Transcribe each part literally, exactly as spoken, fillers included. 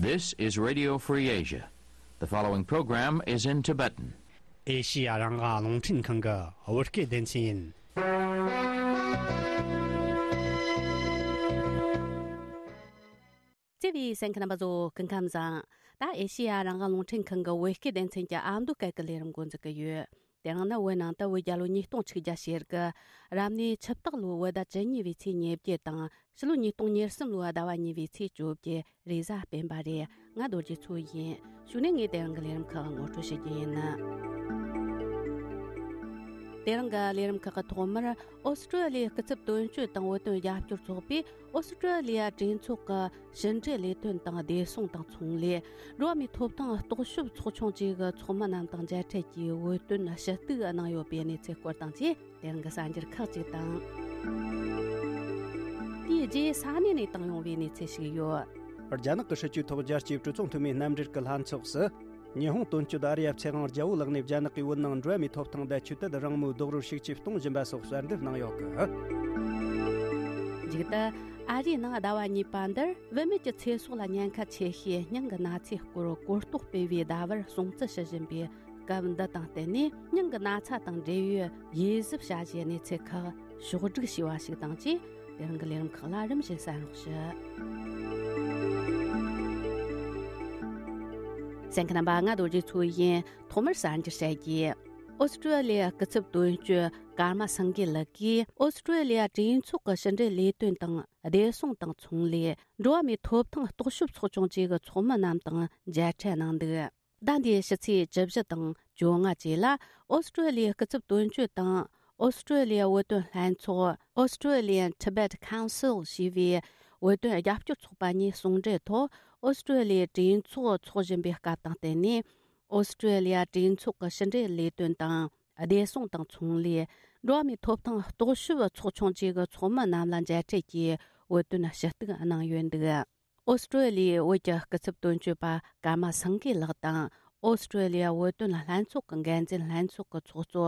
This is Radio Free Asia. The following program is in Tibetan. ཨེ་ཤི་ཡ་རང་དབང་རླུང་འཕྲིན་ཁང་གི་བོད་སྐད་སྡེ་ཚན་ཡིན། བརྩེ་བའི་གསན་མཁན་རྣམ་པ་ཚོ་སྐུ་ཁམས་བཟང་། ད་ཨེ་ཤི་ཡ་རང་དབང་རླུང་འཕྲིན་ཁང་གི་བོད་སྐད་སྡེ་ཚན་གྱི་ཨ་མདོ་སྐད་ཀྱི་ལས་རིམ་འགོ་འཛུགས་ཀྱི་ཡོད། དེ་རིང་ནི་བོད་ནང་དུ་བོད་རྒྱལ་ལོ་ཉིས་སྟོང་ཆིག་བརྒྱ་ཞེ་དགུ། རབ་གནས་ཆུ་སྟག་ལོའི་བོད་ཟླ་བཅུ་གཉིས་པའི་ཚེས་ཉེར་བརྒྱད་དང་། ཕྱི་ལོ་ཉིས་སྟོང་ཉེར་གསུམ་ལོའི་ཟླ་བ་གཉིས་པའི་ཚེས་བཅོ་བརྒྱད། རེས་གཟའ་སྤེན་པ་རེད། ང་རྡོ་རྗེ་མཚོ་ཡིན། གཞུག་ནས་ངས་དེ་རིང་གི་ལས་རིམ་ཁག་ངོ་སྤྲོད་བྱེད་རྒྱུ་ཡིན། དེ་རིང་གི་ལས་རིམ་ཁག་གི་ཐོག་མར། ཨོ་སི་ཀྲོ་ལི་ཡའི་སྐུ་ཚབ་དོན་གཅོད་དང་བོད་དོན་རྒྱབ་སྐྱོར་ཚོགས་པས་ཨོ་སི་ཀྲོ་ལི་ཡ་གྲོས་ཚོགས་ཀྱི་ཕྱི་འབྲེལ་ལས་དོན་དང་བདེ་སྲུང་དང་ཚོང་ལས། འགྲོ་བ་མིའི་ཐོབ་ཐང་རྟོག་ཞིབ་ཚོགས་ཆུང་བཅས་ཀྱི་ཚོགས་མི་རྣམས་དང་མཇལ་འཕྲད་ཀྱིས་བོད་དོན་ཞུ་གཏུག་གནང་ཡོད་པའི་གནས་ཚུལ་སྐོར་དང་བཅས། དེ་རིང་གི་གསར་འགྱུར་ཁག་ཅིག་དང་། དེའི་རྗེས་ས་གནས་ནས་བཏང་ཡོང་བའི་གནས་ཚུལ་ཞིག་ཡོད། རྒྱ་ནག་གི་སྲིད་ཇུས་ཐོག་རྒྱལ་སྤྱིའི་གྲོས་ཚོགས་འཐུས་མིའི་རྣམ་འགྲེལ་གྱི་ལྷན་ཚོགས་སུ། ཉི་ཧོང་དོན་གཅོད་ཨ་རི་ཡ་ཚེ་དབང་རྒྱལ་པོ་ལགས་ནས་རྒྱ་ནག་གིས་བོད་ནང་འགྲོ་བ་མིའི་ཐོབ་ཐང་དང་ཆོས་དད་རང་མོས་རྡོག་རོལ་ཤུགས་ཆེ་གཏོང་བཞིན་པ་སོགས་གསལ་འདེབས་གནང་ཡོད་གི། མཇུག་ཏུ། ཨ་རིའི་ནང་ཟླ་བ་གཉིས་པ་འདིར་བུད་མེད་ཀྱི་ཚེ་སྲོག་ལ་ཉེན་ཁ་ཆེ་ཤོས་སྙིང་གི་ན་ཚའི་སྐོར་གོ་རྟོགས་སྤེལ་བའི་ཟླ་བར་སྲུང་བརྩི་ཞུ་བཞིན་པའི་སྐབས་འདི་དང་བསྟུན་ནས། སྙིང་གི་ན་ཚ་དང་འབྲེལ་ཡོད་དབྱེ་ཞིབ་བྱ་གཞིའི་གནས་ཚུལ་ཁག་ཕྱོགས་བསྒྲིགས་བྱས་པ་ཞིག་དང་བཅས། དེ་རིང་གི་ལས་རིམ་ཁག་ལ་རིམ་བཞིན་གསན་རོགས་ཞུ། གསན་མཁན་རྣམ་པ། ང་རྡོ་རྗེ་མཚོ་ཡིན། ཐོག་མར་གསར་འགྱུར་བཤད་རྒྱུ། ཨོ་སི་ཀྲོ་ལི་ཡ་སྐུ་ཚབ་དོན་གཅོད་ཀརྨ་སངས་རྒྱས་ལགས་ཀྱིས། ཨོ་སི་ཀྲོ་ལི་ཡ་གྲོས་ཚོགས་ཀྱི་ཕྱི་འབྲེལ་ལས་དོན་དང་བདེ་སྲུང་དང་ཚོང་ལས། འགྲོ་བ་མིའི་ཐོབ་ཐང་རྟོག་ཞིབ་ཚོགས་ཆུང་བཅས་ཀྱི་ཚོགས་མི་རྣམས་དང་མཇལ་འཕྲད་གནང་འདུག་ཟླ་འདིའི་ཕྱི་ཚེས་བཅུ་བཞི་དང་བཅོ་ལྔ་བཅས་ལ། ཨོ་སི་ཀྲོ་ལི་ཡའི་སྐུ་ཚབ་དོན་གཅོད་དང་། ཨོ་སི་ཀྲོ་ལི་ཡའི་བོད་དོན་ལྷན་ཚོགས། Australian Tibet Council ཞེས་པའི་བོད་དོན་རྒྱབ་སྐྱོར་ཚོགས་པ་གཉིས་ཟུང་འབྲེལ་ཐོག་ཨོ་སི་ཀྲོ་ལི་ཡའི་གྲོས་ཚོགས་འཚོགས་བཞིན་པའི་སྐབས་དང་བསྟུན་ནས། ཨོ་སི་ཀྲོ་ལི་ཡ་གྲོས་ཚོགས་ཀྱི་ཕྱི་འབྲེལ་ལས་དོན་དང་། བདེ་སྲུང་དང་ཚོང་ལས། འགྲོ་བ་མིའི་ཐོབ་ཐང་རྟོག་ཞིབ་ཚོགས་ཆུང་བཅས་ཀྱི་ཚོགས་མི་རྣམས་ལ་མཇལ་འཕྲད་ཀྱིས་བོད་དོན་ཞུ་གཏུག་གནང་ཡོད་འདུག་ཨོ་སི་ཀྲོ་ལི་ཡའི་བོད་ཀྱི་སྐུ་ཚབ་དོན་གཅོད་པ་ཀརྨ་སངས་རྒྱས་ལགས་དང་། ཨོ་སི་ཀྲོ་ལི་ཡ་བོད་དོན་ལྷན་ཚོགས་ཀྱི་འགན་འཛིན་ལྷན་ཚོགས་ཀྱི་ཚོགས་གཙོ་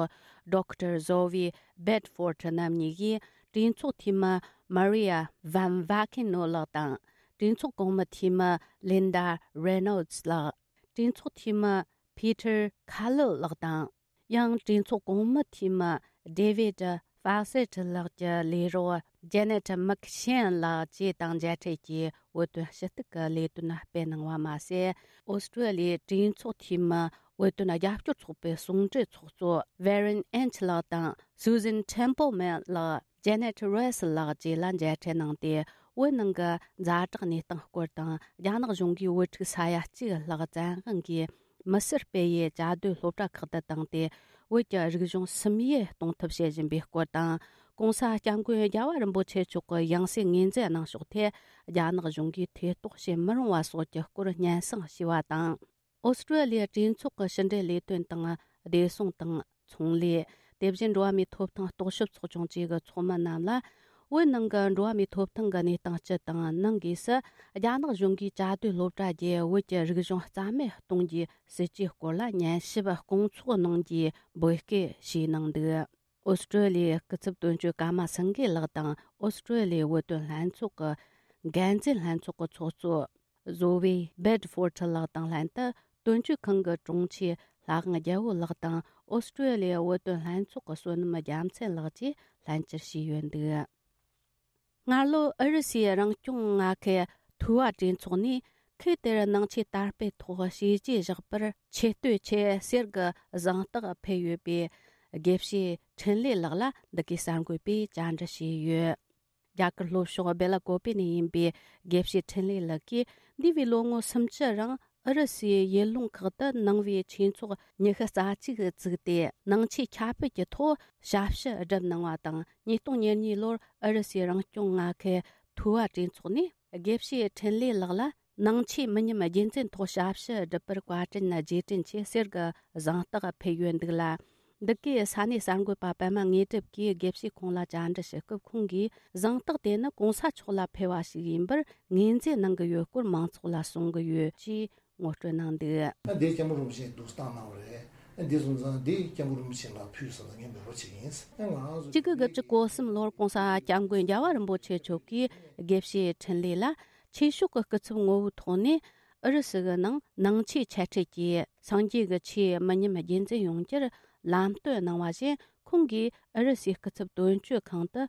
ཌོག་ཊར་ཟོ་ཝི་བེད་ཕོར་ཊི་རྣམ་གཉིས་ཀྱིས། གྲོས་ཚོགས་འཐུས་མི་མ་རི་ཡ་ཝན་ཝ་ཁེ་ནོ་ལགས་དང་། གྲོས་ཚོགས་གོང་མའི་འཐུས་མི་ལིན་ཌ་རེ་ནོལ་ཌི་ལགས། གྲོས་ཚོགས་འཐུས་མི་ཕི་ཐར་ཁ་ལིལ་ལགས་དང་། ཡང་གྲོས་ཚོགས་གོང་མའི་འཐུས་མི་ཌེ་ཝིད་ཧྥ་སེ་ཊི་ལགས་ཀྱི་ལས་རོགས་ཇེ་ནེ་ཊི་མིག་ཤེན་ལགས་བཅས་དང་མཇལ་འཕྲད་ཀྱིས་བོད་དོན་ཞུ་གཏུག་གི་ལས་དོན་སྤེལ་གནང་བ་མ་ཟད། ཨོ་སི་ཀྲོ་ལི་ཡའི་གྲོས་ཚོགས་འཐུས་མི་བོད་དོན་རྒྱབ་སྐྱོར་ཚོགས་པའི་ཟུང་འབྲེལ་ཚོགས་གཙོ་ཝེ་རན་ཨེན་ཆི་ལགས་དང་སུ་ཟན་ཐེམ་པལ་མན་ལགས། ཇེ་ནེ་ཊི་རེས་ལགས་བཅས་ལ་མཇལ་འཕྲད་གནང་སྟེ། བོད་ནང་གི་ཛ་དྲག་གནས་སྟངས་སྐོར་དང་། རྒྱ་ནག་གཞུང་གིས་བོད་ཕྲུག་ས་ཡ་གཅིག་ལྷག་བཙན་དབང་གིས་མི་སེར་སྤེལ་ཡུལ་བཅའ་སྡོད་སློབ་གྲྭ་ཁག་ཏུ་བཏང་སྟེ། བོད་ཀྱི་རིག་གཞུང་སིམ་འཡུལ་གཏོང་ཐབས་བྱེད་བཞིན་པའི་སྐོར་དང་། ྋགོང་ས་ྋསྐྱབས་མགོན་རྒྱལ་བ་རིན་པོ་ཆེ་མཆོག་གི་ཡང་སྲིད་ངོས་འཛིན་གནང་ཕྱོགས་ཐད། རྒྱ་ནག་གཞུང་གིས་ཐེ་གཏོགས་བྱེད་མི་རུང་བ་སོགས་ཀྱི་སྐོར་སྙན་སེང་ཞུས་པ་དང་། ཨོ་སི་ཀྲོ་ལི་ཡའི་གྲོས་ཚོགས་ཀྱི་ཕྱི་འབྲེལ་ལས་དོན་དང་། བདེ་སྲུང་དང་། ཚོང་ལས། དེ་བཞིན་འགྲོ་བ་མིའི་ཐོབ་ཐང་རྟོག་ཞིབ་ཚོགས་ཆུང་བཅས་ཀྱི་ཚོགས་མི་རྣམས་ལ། བོད་ནང་གི་འགྲོ་བ་མིའི་ཐོབ་ཐང་གི་གནས་སྟངས་སྤྱི་དང་། ནང་སྒོས་སུ་རྒྱ་ནག་གཞུང་གིས་བཅའ་སྡོད་སློབ་གྲྭ་བརྒྱུད་བོད་ཀྱི་རིག་གཞུང་རྩ་མེད་གཏོང་རྒྱུའི་སྲིད་ཇུས་སྐོར་ལ་ཉན་ཞིབ་སྐོང་ཚོགས་གནང་རྒྱུའི་འབོད་སྐུལ་ཞུས་གནང་འདུག་ཨོ་སི་ཀྲོ་ལི་ཡའི་སྐུ་ཚབ་དོན་གཅོད་ཀརྨ་སངས་རྒྱས་ལགས་དང་། ཨོ་སི་ཀྲོ་ལི་ཡའི་བོད་དོན་ལྷན་ཚོགས་ཀྱི་འགན་འཛིན་ལྷན་ཚོགས་ཀྱི་ཚོགས་གཙོ་ཟོ་ཝེ་བེད་ཕོར་ཊི་ལགས་དང་ལྷན་དུ། དོན་གཅོད་ཁང་གི་དྲུང་ཆེ་ལྷ་དབང་རྒྱལ་པོ་ལགས་དང་། ཨོ་སི་ཀྲོ་ལི་ཡའི་བོད་དོན་ལྷན་ཚོགས་ཀྱི་བསོད་ནམས་རྒྱལ་མཚན་ལགས་བཅས་ལྷན་བཅར་བྱས་ཡོད་འདུག་སྔ་ལོ་ཨུ་རུ་སུའི་རང་སྐྱོང་མངའ་ཁུལ་ཐུ་བ་གྲོས་ཚོགས་ནས། ཁུལ་དེར་ནང་ཆོས་དར་སྤེལ་ཐོག་བྱས་རྗེས་བཞག་པར་ཆེ་བསྟོད་ཆེད་གསེར་གྱི་གཟེངས་རྟགས་ཕུལ་ཡོད་པའི་དགེ་བཤེས་འཕྲིན་ལས་ལགས་ལ་འདི་གའི་གསར་འགོད་པས་བཅར་འདྲི་བྱས་ཡོད། རྒྱ་གར་ལྷོ་ཕྱོགས་སྦེ་ལ་ཀོ་པེ་ནས་ཡིན་པའི་དགེ་བཤེས་འཕྲིན་ལས་ལགས་ཀྱིས། འདས་པའི་ལོ་ངོ་སུམ་ཅུ་རིང་ཨུ་རུ་སུའི་ཡུལ་ལུང་ཁག་ཏུ་ནང་པའི་ཆོས་ཚོགས་ཉི་ཤུ་རྩ་གཅིག་བཙུགས་ཏེ། ནང་ཆོས་ཁྱབ་སྤེལ་གྱི་ཐོག་ཞབས་ཞུ་བསྒྲུབས་གནང་བ་དང་། ཉིས་སྟོང་ཉེར་གཉིས་ལོར་ཨུ་རུ་སུའི་རང་སྐྱོང་མངའ་ཁུལ་ཐུ་བ་གྲོས་ཚོགས་ནས་དགེ་བཤེས་འཕྲིན་ལས་ལགས་ལ། ནང་ཆོས་མི་ཉམས་རྒྱུན་འཛིན་ཐོག་ཞབས་ཞུ་བསྒྲུབས་པར་བཀའ་དྲིན་རྗེས་དྲན་ཆེད་གསེར་གྱི་གཟེངས་རྟགས་ཕུལ་ཡོད་འདུག་ལ། འདི་གའི་ས་གནས་གསར་འགོད་པ་པད་མ་དངོས་གྲུབ་ཀྱིས་དགེ་བཤེས་ཁོང་ལ་བཅར་འདྲི་ཞུ་སྐབས། ཁོང་གིས་གཟེངས་རྟགས་དེ་ནི་གོང་ས་མཆོག་ལ་ཕུལ་བ་ཞིག་ཡིན་པར་ངོས་འཛིན་གནང་གི་ཡོད་སྐོར་མང་ཚོགས་ལ་གསུང་གི་ཡོད་ཅེས་ངོ་སྤྲོད་གནང་འདུག་ཨ། འདི་སྐྱབས་མགོན་རིན་པོ་ཆེ་འདུག་སྟངས་གནང་བ་རེད། ཨ། འདི་སོང་ཙང་འདི་སྐྱབས་མགོན་རིན་པོ་ཆེ་ལ་ཕུལ་ཟེར་ནས་ངས་འབོད་སྐུལ་བྱེད་ཀྱི་ཡིན། ཨ། ང་རང་ཚོ་གཅིག་དགུ་དགུ་བཅུ་གོ་གསུམ་ལོར་གོང་ས་སྐྱབས་མགོན་རྒྱལ་བ་རིན་པོ་ཆེ་མཆོག་གིས་དགེ་བཤེས་འཕྲིན་ལས་ལ་ཆོས་ཕྱོགས་ཀྱི་སྐུ་ཚབ་ངོ་བོའི་ཐོག་ནས། ཨུ་རུ་སུ་གི་ནང་ནང་ཆོས་ཆེ་འཕྲད་ཀྱིས་སངས་རྒྱས་ཀྱི་ཆོས་མི་ཉམས་རྒྱུན་འཛིན་ཡོང་རྒྱུར་ལམ་སྟོན་གནང་བ་བཞིན། ཁོང་གིས་ཨུ་རུ་སུའི་སྐུ་ཚབ་དོན་གཅོད་ཁང་དུ་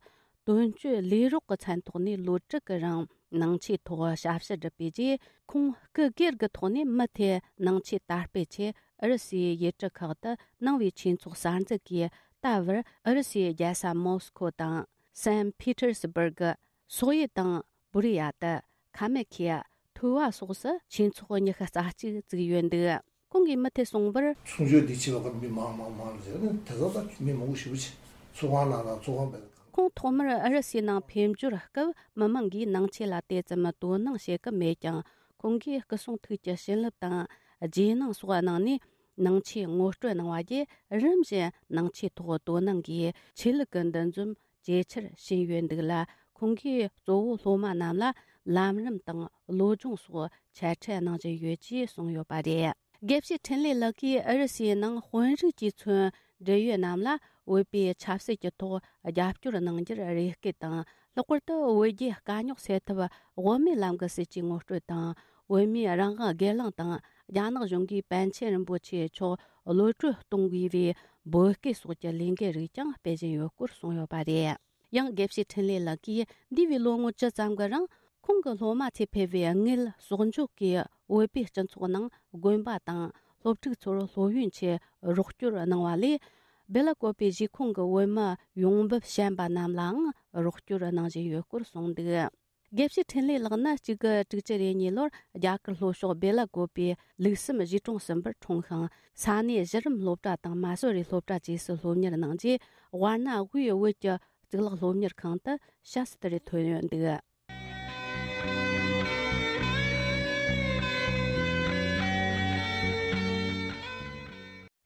དོན་གཅོད་ལས་རོགས་ཀྱི་མཚན་ཐོག་ནས་ལོ་དྲུག་གི་རིང་ནང་ཆོས་ཐོག་ཞབས་ཞུ་བསྒྲུབས་པའི་རྗེས། ཁོང་སྐུ་སྒེར་གྱི་ཐོག་ནས་མུ་མཐུད་ནང་ཆོས་དར་སྤེལ་ཆེད་ཨུ་རུ་སུའི་ཡུལ་གྲུ་ཁག་ཏུ་གནང་བའི་ཆོས་ཚོགས་གསར་འཛུགས་ཀྱིས། ད་བར་ཨུ་རུ་སུའི་རྒྱལ་ས་མོ་སི་ཁོ་དང་སན་ཕི་ཏེར་སི་སྦུར་གི། སོག་ཡུལ་དང་བུ་རི་ཡ་ཏི། ཁ་མེ་ཁི་ཡ། ཐུ་བ་སོགས་སུ་ཆོས་ཚོགས་ཉི་ཤུ་རྩ་གཅིག་བཙུགས་ཡོད་འདུག་ཁོང་གིས་མུ་མཐུད་གསུངས་པར། གསུང་ཆོས་འདི་བྱེད་པ་ཁར་མི་མང་མང་མང་ལ་ཟེར་ནས་དེ་ཚོ་ད་མི་མང་པོ་ཞེ་པོ་ཅིག་ཚོགས་ཁང་ནང་ལ་ཚོགས་ཁང་བས། ཁོང་ཐོག་མར་ཨུ་རུ་སུའི་ནང་ཕེབས་འབྱོར་སྐབས་མི་མང་གིས་ནང་ཆོས་ལ་དེ་ཙམ་དོ་སྣང་བྱེད་ཀྱི་མེད་ཀྱང་། ཁོང་གིས་སྐུ་གསུང་ཐུགས་ཀྱི་བྱིན་རླབས་དང་རྗེས་གནང་སོགས་གནང་ནས། ནང་ཆོས་ངོ་སྤྲོད་གནང་བ་བརྒྱུད། རིམ་བཞིན་ནང་ཆོས་ཐོག་དོ་སྣང་གིས་ཆོས་ལུགས་ཀྱི་འདུ་འཛོམས་ཇེ་ཆེར་ཕྱིན་ཡོད་འདུག་ལ། ཁོང་གིས་གཙོ་བོ་སློབ་མ་རྣམས་ལ་ལམ་རིམ་དང་བློ་སྦྱོང་སོགས་ཆེ་མཐོང་གནང་བཞིན་ཡོད་ཅེས་གསུངས་ཡོད་པ་རེད། དགེ་བཤེས་འཕྲིན་ལས་ལགས་ཀྱིས་ཨུ་རུ་སུའི་ནང་དཔོན་རིགས་ཀྱིས་མཚོན་འབྲེལ་ཡོད་རྣམས་ལ་བོད་པའི་ཆབ་སྲིད་ཀྱི་ཐོག་རྒྱབ་སྐྱོར་གནང་རྒྱུར་རེ་སྐུལ་དང་། ལྷག་པར་དུ་བོད་རྒྱའི་དཀའ་རྙོག་སེལ་ཐབས་དབུ་མའི་ལམ་གྱི་སྲིད་ཇུས་ངོ་སྤྲོད་དང་། བོད་མིའི་རང་དབང་སྒེར་ལངས་དང་། རྒྱ་ནག་གཞུང་གིས་པཎ་ཆེན་རིན་པོ་ཆེ་མཆོག་གློད་གྲོལ་གཏོང་དགོས་པའི་འབོད་སྐུལ་སོགས་ཀྱི་ལས་འགུལ་རིགས་ཀྱང་སྤེལ་བཞིན་ཡོད་སྐོར་གསུངས་ཡོད་པ་རེད། ཡང་དགེ་བཤེས་འཕྲིན་ལས་ལགས་ཀྱིས་འདས་པའི་ལོ་ངོ་བཅུ་ཙམ་གྱི་རིང་། ཁོང་གི་སློབ་མ་ཚོས་ཕེབས་པའི་དངུལ་གསོག་འཇོག་གིས་བོད་པའི་སྤྱི་ཚོགས་ནང་དགོན་པ་དང་སློབ་ཕྲུག་ཚོར་སློབ་ཡོན་ཆེད་རོགས་སྐྱོར་གནང་བ་ལས། སྦེ་ལ་ཀོ་པའི་གཞིས་ཁོངས་ཀྱི་བོད་མི་ཡོང་འབབ་ཞན་པ་རྣམས་ལའང་རོགས་སྐྱོར་གནང་བཞིན་ཡོད་སྐོར་གསུངས་འདུག་དགེ་བཤེས་འཕྲིན་ལས་ལགས་ནི་གཅིག་དགུ་དྲུག་ཅུ་རེ་གཉིས་ལོར་རྒྱ་གར་ལྷོ་ཕྱོགས་སྦེ་ལ་ཀོ་པའི་ལུགས་བསམ་གཞིས་གྲོང་གསུམ་པར་འཁྲུངས་ཤིང་། ས་གནས་གཞི་རིམ་སློབ་གྲྭ་དང་མ་སོ་རི་སློབ་གྲྭ་བཅས་སུ་སློབ་གཉེར་གནང་རྗེས། དབར་ན་དབུས་བོད་ཀྱི་གཙུག་ལག་སློབ་གཉེར་ཁང་དུ་ཞབས་སུ་དེར་ཐོན་ཡོད་འདུག་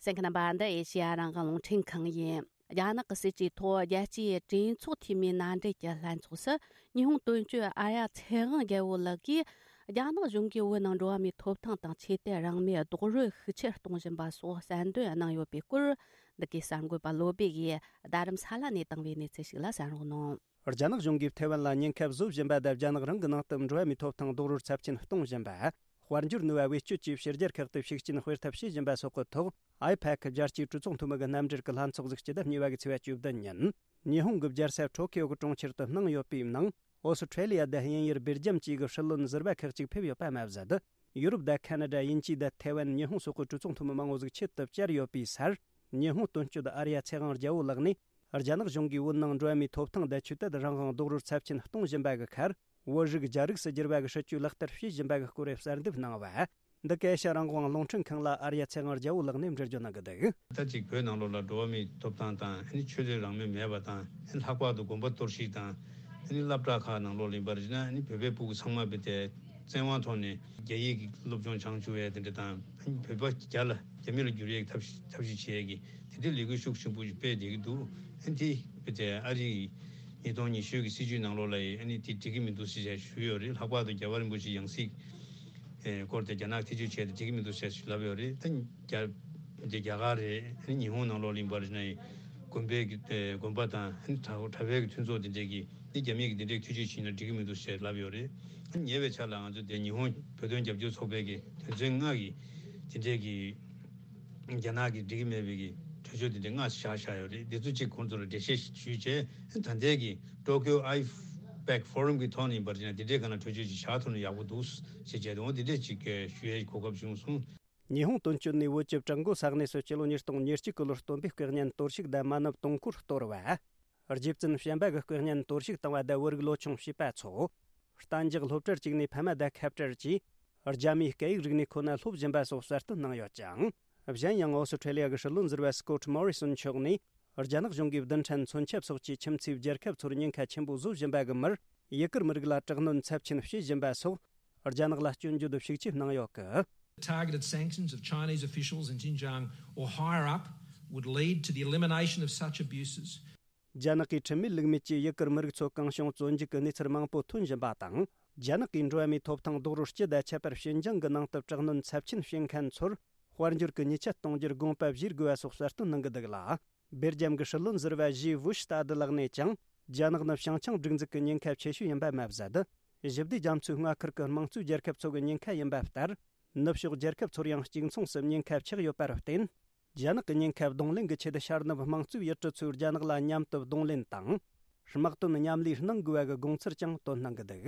གསན་མཁན་རྣམ་པ། འདི་ཨེ་ཤེ་ཡ་རང་དབང་རླུང་འཕྲིན་ཁང་ཡིན། རྒྱ་ནག་གི་སྲིད་ཇུས་ཐོག་རྒྱལ་སྤྱིའི་གྲོས་ཚོགས་འཐུས་མིའི་མནའ་འབྲེལ་གྱི་ལྷན་ཚོགས་སུ། ཉི་ཧོང་དོན་གཅོད་ཨརྱ་ཚེ་དབང་རྒྱལ་པོ་ལགས་ཀྱིས། རྒྱ་ནག་གཞུང་གིས་བོད་ནང་འགྲོ་བ་མིའི་ཐོབ་ཐང་དང་ཆོས་དད་རང་མོས་རྡོག་རོལ་ཤུགས་ཆེར་གཏོང་བཞིན་པ་སོགས་གསལ་འདོན་གནང་ཡོད་པའི་སྐོར། འདི་གའི་གསར་འགོད་པ་བློ་བྷེ་ཡིས་རྡ་རམ་ས་ལ་ནས་བཏང་བའི་གནས་ཚུལ་ཞིག་ལ་གསན་རོགས་གནང་། རྒྱ་ནག་གཞུང་གིས་ཐའེ་ཝན་ལ་ཉེན་ཁ་བཟོ་བཞིན་པ་དང་། རྒྱ་ནག་རང་གི་ནང་དུ་འགྲོ་བ་མིའི་ཐོབ་ཐང་རྡོག་རོལ་ཚབས་ཆེན་གཏོང་བཞིན་པ། དཔལ་འབྱོར་ནུས་པ་བེད་སྤྱོད་ཀྱིས་ཕྱི་རྒྱལ་ཁག་ཏུ་ཤུགས་རྐྱེན་སྤེལ་ཐབས་བྱེད་བཞིན་པ་སོགས་ཀྱི་ཐོག་ཨའི་པེག་རྒྱལ་སྤྱིའི་གྲོས་ཚོགས་འཐུས་མི་གི་རྣམ་འགྲེལ་གྱི་ལྷན་ཚོགས་ཤིག་སྤྱི་ཟླ་གཉིས་པ་གི་ཚེས་པ་བཅུ་བདུན་ཉིན་ཉི་ཧོང་གི་རྒྱལ་ས་ཊོ་ཀིའོ་གི་གྲོང་ཁྱེར་དུ་གནང་ཡོད་པའི་ནང་། ཨོ་སི་ཁྲེ་ལི་ཡ་དང་དབྱིན་ཡུལ། སྦེལ་ཇམ་བཅས་ཀྱི་སྲིད་བློན་ཟུར་པ་ཁག་ཅིག་ཕེབས་ཡོད་པ་མ་ཟད། ཡུ་རོབ་དང་ཁ་ན་ཌ། དབྱིན་ཇི་དང་ཐའེ་ཝན། ཉི་ཧོང་སོགས་ཀྱི་གྲོས་ཚོགས་འཐུས་མི་མང་བོ་ཟིག་ཆེད་དུ་བཅར་ཡོད་པའི་སར། ཉི་ཧོང་དོན་གཅོད་ཨརྱ་ཚེ་དབང་རྒྱལ་པོ་ལགས་ནས། རྒྱ་ནག་གཞུང་གིས་བོད་ནང་འགྲོ་བ་མིའི་ཐོབ་ཐང་དང་ཆོས་དད་རང་དབང་རྡོག་རོལ་ཚབས་ཆེན་གཏོང་བཞིན་པ་གི་ཁར། བོད་རིགས་རྒྱ་རིགས་སུ་བསྒྱུར་བ་གི་སྲིད་ཇུས་ལག་བསྟར་བྱེད་བཞིན་པ་གི་སྐོར་གསལ་འདེབས་གནང་བ། འདི་ག་ཨེ་ཤ་རང་དབང་རླུང་འཕྲིན་ཁང་ལ་ཨརྱ་ཚེ་དབང་རྒྱལ་པོ་ལགས་ནས་འགྲེལ་བརྗོད་གནང་གི་འདུག་ད་ཅིག་བོད་ནང་ལོགས་ལ་འགྲོ་བ་མིའི་ཐོབ་ཐང་དང་། ཨ་ནི་ཆོས་དད་རང་མོས་མེད་པ་དང་། ཨ་ནི་ལྷག་པར་དུ་དགོན་པ་གཏོར་བཤིག་དང་། ཨ་ནི་སློབ་གྲྭ་ཁག་ནང་ལོགས་ལ་ཡིན་པར་བྱས་ན། ཨ་ནི་བོད་པའི་ཕྲུ་གུ་ཚང་མ་བོད་དེ་བཙན་དབང་ཐོག་ནས་རྒྱ་ཡིག་གི་སློབ་སྦྱོང་སྦྱང་བཅུག་ཡས་དེ་འདྲ་དང་། ཨ་ནི་བོད་པ་རྒྱ་ལ་རྒྱ་མི་ལ་བསྒྱུར་ཡས་ཀྱི་ཐབས་ཐབས་ཤེས་བྱེད་ཡས་ཀྱི་དེ་འདྲའི་ལས་འགུལ་ཤུགས་ཆེན་པོ་ཞིག་སྤེལ་བསྡད་ཀྱི་འདུག་ཨ་ནི་དེ་བོད་དེ་ཨ་རིའི་ཉིས་སྟོང་ཉི་ཤུ་གི་སྲིད་ཇུས་ནང་ལོགས་ལ་ཡིན། ཨ་ནི་དེ་འགྲིག་གི་མི་འདུག་ཟེར་བྱས་ཞུས་ཡོད་རེད། ལྷག་པར་དུ་རྒྱལ་བ་རིན་པོ་ཆེའི་ཡང་སྲིད་ཨེ་སྐོར་དེ་རྒྱ་ནག་ཐེ་བྱུས་བྱས་ཏེ་འགྲིག་གི་མི་འདུག་ཟེར་ལབ་ཡོད་རེད། ད་རྒྱ་དེ་རྒྱ་གར་རེད། ཨ་ནི་ཉི་ཧོང་ནང་ལོགས་ལ་ཡིན་པར་བྱས་ན་ཡང་དགོན་པའི་གི་ཨེ་དགོན་པ་དང་། ཨ་ནི་གྲྭ་གྲྭ་པའི་གི་མཐུན་ཚོགས་དེ་འདྲས་ཀྱིས་འདི་རྒྱ་མི་གི་འདི་འདྲས་ཐེ་བྱུས་བྱས་ན་འགྲིག་གི་མི་འདུག་ཟེར་ལབ་ཡོད་རེད། ཨ་ནི་ཉེ་བའི་ཆར་ལ་ང་ཚོ་དེ་ཉི་ཧོང་བོད་དོན་རྒྱབ་སྐྱོར་ཚོགས་པའི་གི་དོན་ཚན་ལྔ་གི་དེ་འདྲས་ཀྱི་རྒྱ་ནག་གི་འགྲིག་གི་མེད་པའི་གི་གྲོས་ཆོད་དེ་འདྲས་ལྔ་བཞག་བཞག་ཡོད་རེད། དེ་ཚོ་གཅིག་ཁོང་ཚོ་ལ་འགྲེལ་བཤད་ཞུས་བྱས། ཨ་ནི་ད་ལྟའི་གི་ཊོ་ཀིའོ་ཨའི་པེག་ཕོ་རམ་གི་ཐོག་ནས་ཡིན་པར་བྱས་ན་དེ་འདྲའི་སྒང་ལ་གྲོས་ཆོད་ཅིག་བཞག་ཐུབ་ན་ཡག་པོ་འདུག་ཟེར་བྱས་ཏེ། འོ་དེ་འདྲས་ཅིག་ཞུ་ཡའི་གོ་སྐབས་བྱུང་སོང་། ཉི་ཧོང་དོན་གཅོད་ནས་བོད་ཀྱི་བྲག་འགོ་ས་གནས་སུ་སྤྱི་ལོ་ཉིས་སྟོང་ཉེར་གཅིག་གི་ལོར་སྟོན་པའི་སྐུ་བརྙན་གཏོར་བཤིག་དང་མ་ཎི་དུང་འཁོར་གཏོར་བ། རྗེ་བཙུན་བྱམས་པ་གི་སྐུ་བརྙན་གཏོར་བཤིག་བཏང་བ་དང་བོད་རིགས་ལོ་ཆུང་བྱིས་པ་ཚོ། གཏན་འཇགས་སློབ་གྲྭར་བཅུག་ནས་ཕ་མ་དང་ཁ་བྲལ་གྱིས། རྒྱ་མིའི་སྐད་ཡིག་རིག་གནས་ཁོ་ན་སློབ་བཞིན་པ་སོགས་གསལ་སྟོན་གནང་ཡོད་ཅིང་། གཞན་ཡང་ཨོ་སི་ཁྲེ་ལི་ཡ་གི་སྲིད་བློན་ཟུར་པ་སྐོ་ཊི་མོ་རི་སོན་མཆོག་ནས། རྒྱ་ནག་གཞུང་གིས་རྡུལ་ཕྲན་མཚོན་ཆ་སོགས་ཀྱིས་ཁྱིམ་མཚེས་རྒྱལ་ཁབ་ཚོར་ཉེན་ཁ་ཆེན་པོ་བཟོ་བཞིན་པ་གི་མུར། ཡུ་གུར་མི་རིགས་ལ་དྲག་གནོན་ཚབས་ཆེན་བྱེད་བཞིན་པ་སོགས། རྒྱ་ནག་ལ་སྐྱོན་བརྗོད་ཤུགས་ཆེ་གནང་ཡོད་གི། Targeted sanctions of Chinese officials in Xinjiang or higher up would lead to the elimination of such abuses. རྒྱ་ནག་གིས་ཁྲིམས་མེད་ལུགས་མེད་ཀྱིས་ཡུ་གུར་མི་རིགས་ཚོ་གང་བྱུང་བཙོན་འཇུག་གི་གནས་ཚུལ་མང་པོ་ཐོན་བཞིན་པ་དང་། རྒྱ་ནག་གིས་འགྲོ་བ་མིའི་ཐོབ་ཐང་རྡོག་རོལ་སྤྱི་དང་ཁྱད་པར་ཞིན་ཅང་གི་ནང་དུ་དྲག་གནོན་ཚབས་ཆེན་བྱེད་མཁན་ཚོར་དཔལ་འབྱོར་གྱི་ཉེས་ཆད་གཏོང་རྒྱུར་དགོངས་པ་བཞེས་དགོས་པ་སོགས་གསལ་སྟོན་གནང་གི་འདུག་ལ། སྦེལ་ཇམ་གྱི་སྲིད་བློན་ཟུར་པ་ཞི་བུ་ཤི་ཏཱ་ཏི་ལགས་ནས་ཀྱང་། རྒྱ་ནག་ནི་བྱང་ཆིངས་སྒྲིག་འཛུགས་ཀྱི་ཉེན་ཁ་ཆེ་ཤོས་ཡིན་པ་མ་ཟད། ཞི་བདེ་རྒྱ་མཚོའི་མངའ་ཁུལ་གྱི་དམངས་གཙོའི་རྒྱལ་ཁབ་ཚོ་གི་ཉེན་ཁ་ཡིན་པ་ལྟར། ནུབ་ཕྱོགས་རྒྱལ་ཁབ་ཚོར་ཡང་གཅིག་མཚུངས་སུ་ཉེན་ཁ་ཆགས་ཡོད་པར་བརྟེན། རྒྱ་ནག་གི་ཉེན་ཁ་གདོང་ལེན་གྱི་ཆེད་ཤར་ནུབ་དམངས་གཙོའི་ཡུལ་གྲུ་ཚོས་རྒྱ་ནག་ལ་མཉམ་དུ་གདོང་ལེན་དང་། དམག་དོན་མཉམ་ལས་གནང་དགོས་པ་གི་དགོངས་ཚུལ་ཀྱང་བཏོན་གནང་གི་འདུག་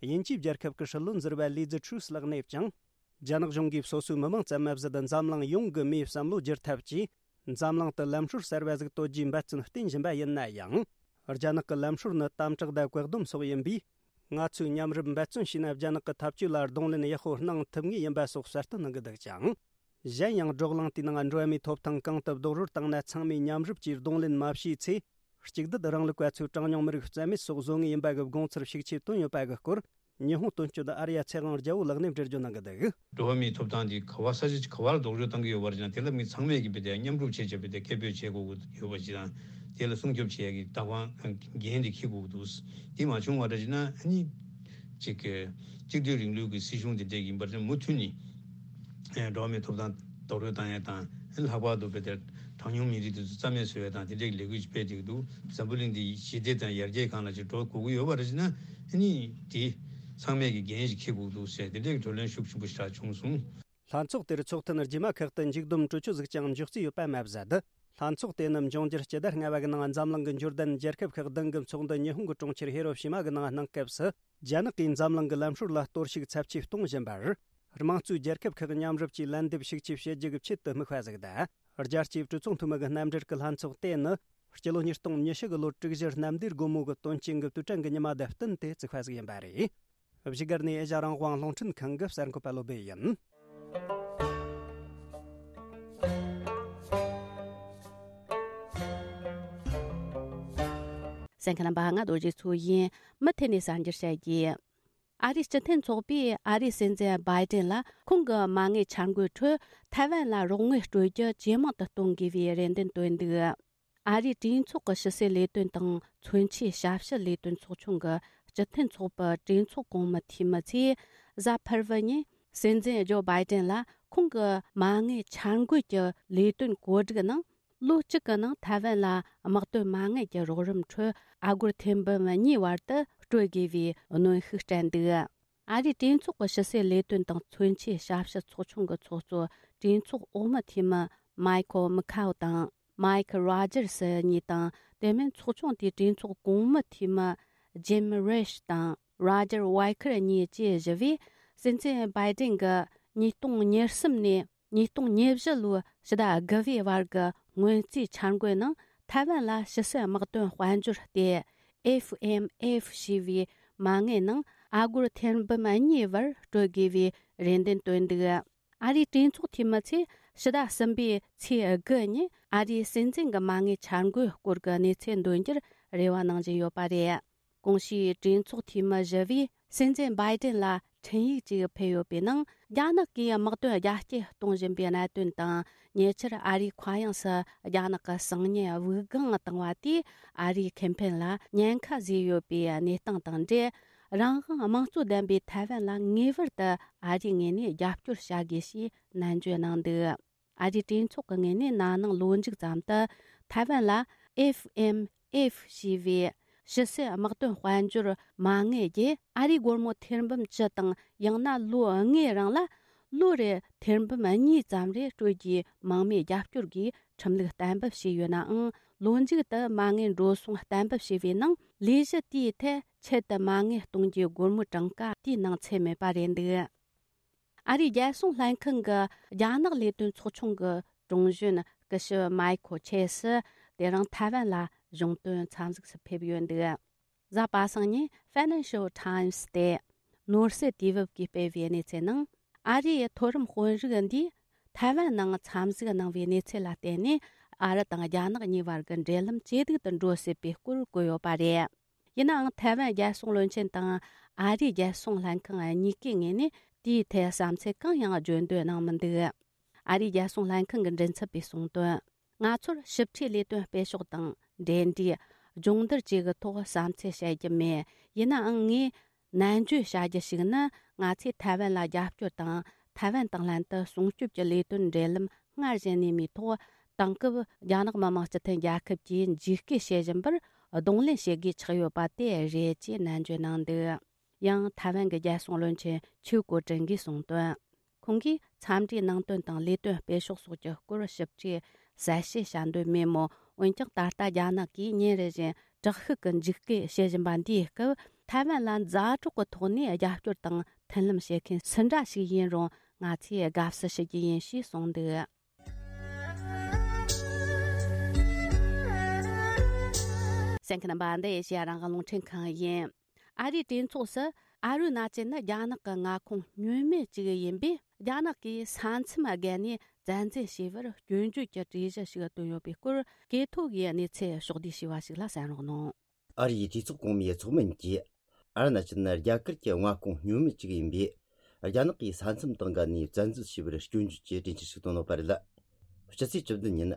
དབྱིན་ཇིའི་རྒྱལ་ཁབ་ཀྱི་སྲིད་བློན་ཟུར་པ་ལི་ཛི་ཁྲུས་ལགས་ནས་ཀྱང་། རྒྱ་ནག་གཞུང་གིས་སོ་སོའི་མི་དམངས་ཙམ་མ་ཟད་འཛམ་གླིང་ཡོངས་ཀྱི་མིའི་བསམ་བློ་བསྒྱུར་ཐབས་ཀྱིས། འཛམ་གླིང་དུ་ལམ་སྲོལ་གསར་བ་ཟིག་གཏོད་རྒྱུའི་འབད་བརྩོན་བསྟེན་བཞིན་པ་ཡིན་ན་ཡང་། རྒྱ་ནག་གི་ལམ་སྲོལ་ནི་དམ་དྲག་དང་བཀག་སྡོམ་སོགས་ཡིན་པས། ང་ཚོས་མཉམ་རུབ་འབད་བརྩོན་བྱས་ན་རྒྱ་ནག་གི་ཐབས་ཇུས་ལ་གདོང་ལེན་ཡག་པོ་གནང་ཐུབ་ངེས་ཡིན་པ་སོགས་གསལ་སྟོན་གནང་གི་འདུག་ཅིང་། གཞན་ཡང་བགྲོ་གླེང་དེའི་ནང་འགྲོ་བ་མིའི་ཐོབ་ཐང་གང་ཐུབ་རྡོག་རོལ་བཏང་ན་ཚང་མས་མཉམ་རུབ་ཀྱིས་གདོང་ལེན་མ་བྱས་ཚེ། གཅིག་སྡུད་རིང་ལུགས་པ་ཚོས་གྲངས་ཉུང་མི་རིགས་རྩ་མེད་སོགས་བཟོ་ངེས་ཡིན་པ་གི་དགོངས་ཚུལ་ཤུགས་ཆེ་བཏོན་ཡོད་པ་གི་སྐོར། ཉི་ཧོང་དོན་གཅོད་ཨར་ཡ་ཚེ་དབང་རྒྱལ་པོ་ལགས་ནས་འགྲེལ་བརྗོད་གནང་གི་འདུག་འགྲོ་བ་མིའི་ཐོབ་ཐང་འདི་ག་བ་ས་ཆ་ག་བར་རྡོག་རོལ་བཏང་གི་ཡོད་པ་རེད་ཅང་དེ་ལ་མི་ཚང་མས་ཀྱི་བི་དེ་མཉམ་རུབ་བྱེད་བྱེད་བི་དེ་སྐད་འབོད་བྱེད་དགོས་ཀྱི་ཡོད་པ་ཅི་དང་དེ་ལ་སྲུང་སྐྱོབ་བྱེད་ཡ་གི་ལྟ་བ་འགན་འདི་འཁྱེར་དགོས་ཀྱི་འདུག་དེ་མ་བྱུང་བ་འདྲ་ཅི་ན་ཨ་ནི་ཅིག་གི་གཅིག་སྡུད་རིང་ལུགས་ཀྱི་སྲིད་གཞུང་དེ་འདྲས་ཡིན་པ་རེད་མུ་མཐུད་ནས་འགྲོ་བ་མིའི་ཐོབ་ཐང་རྡོག་རོལ་བཏང་ཡ་དང་ལྷག་པར་དུ་བི་དེ་གྲངས་ཉུང་མི་རིགས་དེ་ཚོ་རྩ་མེད་བཟོ་ཡ་དང་དེ་འདྲས་ཀྱི་ལས་འགུལ་ཅིག་སྤེལ་བསྡད་ཀྱི་འདུག་འཛམ་བུ་གླིང་འདི་ཞི་བདེ་དང་ཡར་རྒྱས་སྒང་ལ་ཅིག་འགྲོ་དགོས་ཀྱི་ཡོད་པ་རེད་ཅི་ན་ཨ་ནི་དེ་ཚང་མས་ཀྱི་འགན་ཞིག་འཁྱེར་དགོས་འདུག་ཟེར་དེ་འདྲས་ཀྱི་བགྲོ་གླེང་ཤུགས་ཆེན་པོ་ཞིག་བྱུང་སོང་། ལྷན་ཚོགས་དེར་ཚོགས་ཐེངས་རྗེས་མ་ཁག་ཏུ་མཇུག་བསྡོམས་གྲོས་ཆོད་ཟིག་ཀྱང་འཇོག་རྩིས་ཡོད་པ་མ་ཟད། ལྷན་ཚོགས་དེ་ནི་འབྱུང་འགྱུར་སྤྱི་ཟླ་ལྔ་པ་གི་ནང་འཛམ་གླིང་གི་འབྱོར་ལྡན་རྒྱལ་ཁབ་ཁག་བདུན་གྱི་ཚོགས་འདུ་ཉི་ཧོང་གི་གྲོང་ཁྱེར་ཧི་རོ་ཤི་མ་གི་ནང་གནང་སྐབས་སུ། རྒྱ་ནག་གིས་འཛམ་གླིང་གི་ལམ་སྲོལ་ལ་གཏོར་བཤིག་ཚབས་ཆེ་གཏོང་བཞིན་པར། དམངས་གཙོའི་རྒྱལ་ཁབ་ཁག་མཉམ་རུབ་ཀྱིས་ལན་འདེབས་ཤུགས་ཆེ་བྱེད་རྒྱུ་གི་ཆེད་དུ་དམིགས་པ་ཟིག་དང་། རྒྱལ་སྤྱིའི་གྲོས་ཚོགས་འཐུས་མི་གི་རྣམ་འགྲེལ་གྱི་ལྷན་ཚོགས་དེ་ནི། སྤྱི་ལོ་ཉིས་སྟོང་ཉི་ཤུ་གི་ལོ་དྲུག་བཞི་གནམ་བདེ་སྒོ་མོ་གི་དོན་རྐྱེན་གྱི་དུས་དྲན་གྱི་ཉི་མ་དང་བསྟུན་ཏེ་བཙུགས་པ་ཟིག་ཡིན་པ་རེད། བཞུགས་སྒར་ནས་ཨེ་ཤ་རང་དབང་རླུང་འཕྲིན་ཁང་གི་གསར་འགོད་པ་བློ་བྷེ་ཡིན། གསན་མཁན་རྣམ་པ་ང་རྡོ་རྗེ་མཚོ་ཡིན། མུ་མཐུད་ནས་གསར་འགྱུར་བཤད་རྒྱུ། ཨ་རིའི་སྤྱི་མཐུན་ཚོགས་པས་ཨ་རིའི་སྲིད་འཛིན་བྷའི་ཏིན་ལ་ཁོང་གི་མ་དངུལ་འཆར་འགོད་ཁྲོད་ཐའེ་ཝན་ལ་རོགས་དངུལ་སྤྲོད་རྒྱུ་ཇེ་མང་དུ་གཏོང་དགོས་པའི་རེ་འདུན་བཏོན་འདུག་ཨ་རིའི་གྲོས་ཚོགས་ཀྱི་ཕྱི་སྲིད་ལས་དོན་དང་མཚོན་ཆའི་ཞབས་ཞུ་ལས་དོན་ཚོགས་ཆུང་གི་སྤྱི་མཐུན་ཚོགས་པའི་གྲོས་ཚོགས་གོང་མའི་འཐུས་མི་ཚོས་གཟའ་ཕུར་བུ་ཉིན་སྲིད་འཛིན་ཇོ་བྷའི་ཏིན་ལ་ཁོང་གི་མ་དངུལ་འཆར་འགོད་ཀྱི་ལས་དོན་བཀོད་སྒྲིག་ནང་ལོ་གཅིག་གི་ནང་ཐའེ་ཝན་ལ་དམག་དོན་མ་དངུལ་གྱི་རོགས་རམ་ཁྲོད་ཨ་སྒོར་ཐེར་འབུམ་གཉིས་བར་དུ་སྤྲོད་དགོས་པའི་གནོན་ཤུགས་སྤྲད་འདུག་ཨ་རིའི་གྲོས་ཚོགས་ཀྱི་ཕྱི་སྲིད་ལས་དོན་དང་མཚོན་ཆའི་ཞབས་ཞུ་ཚོགས་ཆུང་གི་ཚོགས་གཙོ་གྲོས་ཚོགས་འོག་མའི་འཐུས་མི་མའི་ཁོ་མི་ཁའོ་དང་། མའི་ཁི་རོ་ཇར་སི་གཉིས་དང་། དེ་མིན་ཚོགས་ཆུང་དེའི་གྲོས་ཚོགས་གོང་མའི་འཐུས་མི་ཇིམ་རེ་ཤི་དང་རོ་ཇར་ཝའི་ཁར་གཉིས་བཅས་བཞི་བས། སྲིད་འཛིན་བྷའི་ཏིན་གྱིས་ཉིས་སྟོང་ཉེར་གསུམ་ནས་ཉིས་སྟོང་ཉེར་བཞི་ལོའི་ཕྱི་ཟླ་དགུ་པའི་བར་གྱི་སྔོན་རྩིས་འཆར་འགོད་ནང་ཐའེ་ཝན་ལ་ཕྱི་སྲིད་དམག་དོན་དཔལ་འབྱོར་སྟེ། ཨེཕ་ཨེམ་ཨེཕ་ཞེས་པའི་མ་དངུལ་ནང་ཨ་སྒོར་ཐེར་འབུམ་གཉིས་བར་སྤྲོད་དགོས་པའི་རེ་འདུན་བཏོན་འདུག་ཨ་རིའི་གྲོས་ཚོགས་འཐུས་མི་ཚོས་ཕྱི་ཟླ་གསུམ་པའི་ཚེས་དགུ་ཉིན་ཨ་རིའི་སྲིད་འཛིན་གྱི་མ་དངུལ་འཆར་འགོད་སྐོར་གྱི་གནས་ཚུལ་འདོན་རྒྱུར་རེ་བ་གནང་བཞིན་ཡོད་པ་རེད། གོང་ཞུས་གྲོས་ཚོགས་འཐུས་མི་བཞི་བས་སྲིད་འཛིན་བྷའི་ཏིན་ལ་འཕྲིན་ཡིག་ཅིག་ཕུལ་ཡོད་པའི་ནང་རྒྱ་ནག་གིས་དམག་དོན་རྒྱ་སྐྱེད་གཏོང་བཞིན་པའི་གནད་དོན་དང་། ཉེ་ཆར་ཨ་རིའི་མཁའ་དབྱིངས་སུ་རྒྱ་ནག་གི་གསང་ཉུལ་དབུགས་ལྒང་བཏང་བ་དེས་ཨ་རིའི་ཁེ་ཕན་ལ་ཉེན་ཁ་བཟོས་ཡོད་པའི་གནས་སྟངས་དང་འབྲེལ། རང་དབང་དམངས་གཙོ་ལྡན་པའི་ཐའེ་ཝན་ལ་ངེས་པར་དུ་ཨ་རིའི་ངོས་ནས་རྒྱབ་སྐྱོར་བྱ་དགོས་ཞེས་ནན་བརྗོད་གནང་འདུག་ཨ་རིའི་གྲོས་ཚོགས་ཀྱི་ངོས་ནས་ན་ནིང་ལོ་མཇུག་ཙམ་དུ་ཐའེ་ཝན་ལ་ཨེཕ་ཨེམ་ཨེཕ་ཞེས་པའི་ཕྱི་སྲིད་དམག་དོན་དཔལ་འབྱོར་མ་དངུལ་བརྒྱུད་ཨ་རིའི་སྒོར་མོ་ཐེར་འབུམ་བཅུ་དང་ཡང་ན་ལོ་ལྔའི་རིང་ལ་ལོ་རེར་ཐེར་འབུམ་གཉིས་ཙམ་རེ་སྤྲོད་རྒྱུའི་མང་མོས་རྒྱབ་སྐྱོར་གྱི་ཁྲིམས་ལུགས་གཏན་འབེབས་བྱས་ཡོད་ནའང་ལོ་མཇུག་ཏུ་མ་དངུལ་འགྲོ་སོང་གཏན་འབེབས་བྱས་པའི་ནང་ལས་གཞི་དེའི་ཐད་ཆེད་དུ་མ་དངུལ་གཏོང་རྒྱུའི་སྒོར་མོའི་གྲངས་ཀ་དེའི་ནང་ཚུད་མེད་པ་རེད་འདུག་ཨ་རིའི་རྒྱལ་སྲུང་ལྷན་ཁང་གི་རྒྱ་ནག་ལས་དོན་ཚོགས་ཆུང་གི་དྲུང་གཞོན་སྐུ་ཞབས་མའི་ཁོ་ཆེ་སི་དེ་རིང་ཐའེ་ཝན་ལ་གཞུང་དོན་འཚམས་གཟིགས་སུ་ཕེབས་ཡོད་འདུག་གཟའ་པ་སངས་ཉིན་Financial Times་སྟེ་ནོར་སྲིད་དུས་བབ་ཀྱིས་སྤེལ་བའི་གནས་ཚུལ་ནང་ཨ་རིའི་མཐོ་རིམ་དཔོན་རིགས་འདིས་ཐའེ་ཝན་ནང་འཚམས་གཟིགས་གནང་བའི་གནས་ཚུལ་ལ་བརྟེན་ནས་ཨ་རི་དང་རྒྱ་ནག་གཉིས་བར་གྱི་འབྲེལ་ལམ་ཇེ་སྡུག་ཏུ་འགྲོ་སྲིད་པའི་སྐོར་བཀོད་ཡོད་པ་རེད། ཡིན་ནའང་ཐའེ་ཝན་རྒྱལ་སྲུང་བློན་ཆེན་དང་ཨ་རིའི་རྒྱལ་སྲུང་ལྷན་ཁང་གཉིས་ཀའི་ངོས་ནས་དེའི་ཐད་བསམ་ཚུལ་གང་ཡང་བརྗོད་འདོད་གནང་མི་འདུག་ཨ་རིའི་རྒྱལ་སྲུང་ལྷན་ཁང་གི་མགྲིན་ཚབ་པས་གསུངས་དོན། ང་ཚོར་ཞིབ་ཕྲའི་ལས་དོན་སྤེལ་ཕྱོགས་དང་འབྲེལ་འདྲིས། སྦྱོང་བརྡར་བཅས་ཀྱི་ཐོག་བསམ་ཚུལ་བཤད་རྒྱུ་མེད། ཡིན་ནའང་ངས་ནན་བརྗོད་བྱ་རྒྱུ་ཞིག་ནི་ང་ཚོས་ཐའེ་ཝན་ལ་རྒྱབ་སྐྱོར་དང་ཐའེ་ཝན་དང་ལྷན་དུ་སྲུང་སྐྱོབ་ཀྱི་ལས་དོན་འབྲེལ་ལམ་སྔར་བཞིན་གནས་མིའི་ཐོག་དེང་སྐབས་རྒྱ་ནག་མི་དམངས་སྤྱི་མཐུན་རྒྱལ་ཁབ་ཀྱིས་འཇིགས་སྐུལ་བྱེད་བཞིན་པར་གདོང་ལེན་བྱེད་དགོས་ཆགས་ཡོད་པ་དེ་རེད་ཅེས་ནན་བརྗོད་གནང་འདུག་ཡང་ཐའེ་ཝན་གྱི་རྒྱལ་སྲུང་བློན་ཆེན་ཆིའུ་ཀོ་ཀྲིན་གྱིས་གསུངས་དོན། ཁོང་གིས་འཚམས་འདྲིའི་ནང་དོན་དང་ལས་དོན་སྤེལ་ཕྱོགས་སོགས་ཀྱི་སྐོར་ཞིབ་ཕྲའི་གསལ་བཤད་བྱ་འདོད་མེད་མོད། འོན་ཀྱང་ད་ལྟ་རྒྱ་ནག་གིས་ཉིན་རེ་བཞིན་དྲག་ཤུགས་ཀྱི་འཇིགས་སྐུལ་བྱེད་བཞིན་པ་འདིའི་སྐབས། ཐའེ་ཝན་ལ་མཛའ་གྲོགས་ཀྱི་ཐོག་ནས་རྒྱབ་སྐྱོར་དང་མཐུན་ལམ་བྱེད་མཁན་སུ་འདྲ་ཞིག་ཡིན་རུང་། ང་ཚོས་དགའ་བསུ་ཞུ་རྒྱུ་ཡིན་ཞེས་གསུངས་འདུག་གསན་མཁན་རྣམ་པ། འདི་ཨེ་ཤེ་ཡ་རང་དབང་རླུང་འཕྲིན་ཁང་ཡིན། ཨ་རིའི་གྲོས་ཚོགས་སུ་ཨ་རུ་ན་ཅལ་ནི་རྒྱ་ནག་གི་མངའ་ཁོངས་བསྙོན་མེད་ཅིག་ཡིན་པས། རྒྱ་ནག་གིས་ས་མཚམས་བརྒལ་ནས་བཙན་འཛུལ་བྱས་པར་སྐྱོན་བརྗོད་ཀྱི་གྲོས་གཞི་ཞིག་བཏོན་ཡོད་པའི་སྐོར། གྲོས་ཚོགས་ཀྱི་གནས་ཚུལ་ཕྱོགས་བསྡུས་བྱས་པ་ཞིག་ལ་གསན་རོགས་གནང་། ཨ་རིའི་གྲོས་ཚོགས་གོང་མའི་ཚོགས་མི་གཉིས་ཀྱིས། ཨ་རུ་ན་ཅལ་ནི་རྒྱ་གར་གྱི་མངའ་ཁོངས་བསྙོན་མེད་ཅིག་ཡིན་པས། རྒྱ་ནག་གིས་ས་མཚམས་དང་འགལ་ནས་བཙན་འཛུལ་བྱས་པར་སྐྱོན་བརྗོད་ཀྱི་གྲོས་འཆར་ཞིག་བཏོན་ཡོད་པ་རེད། སྤྱི་ཚེས་བཅུ་བདུན་ཉིན།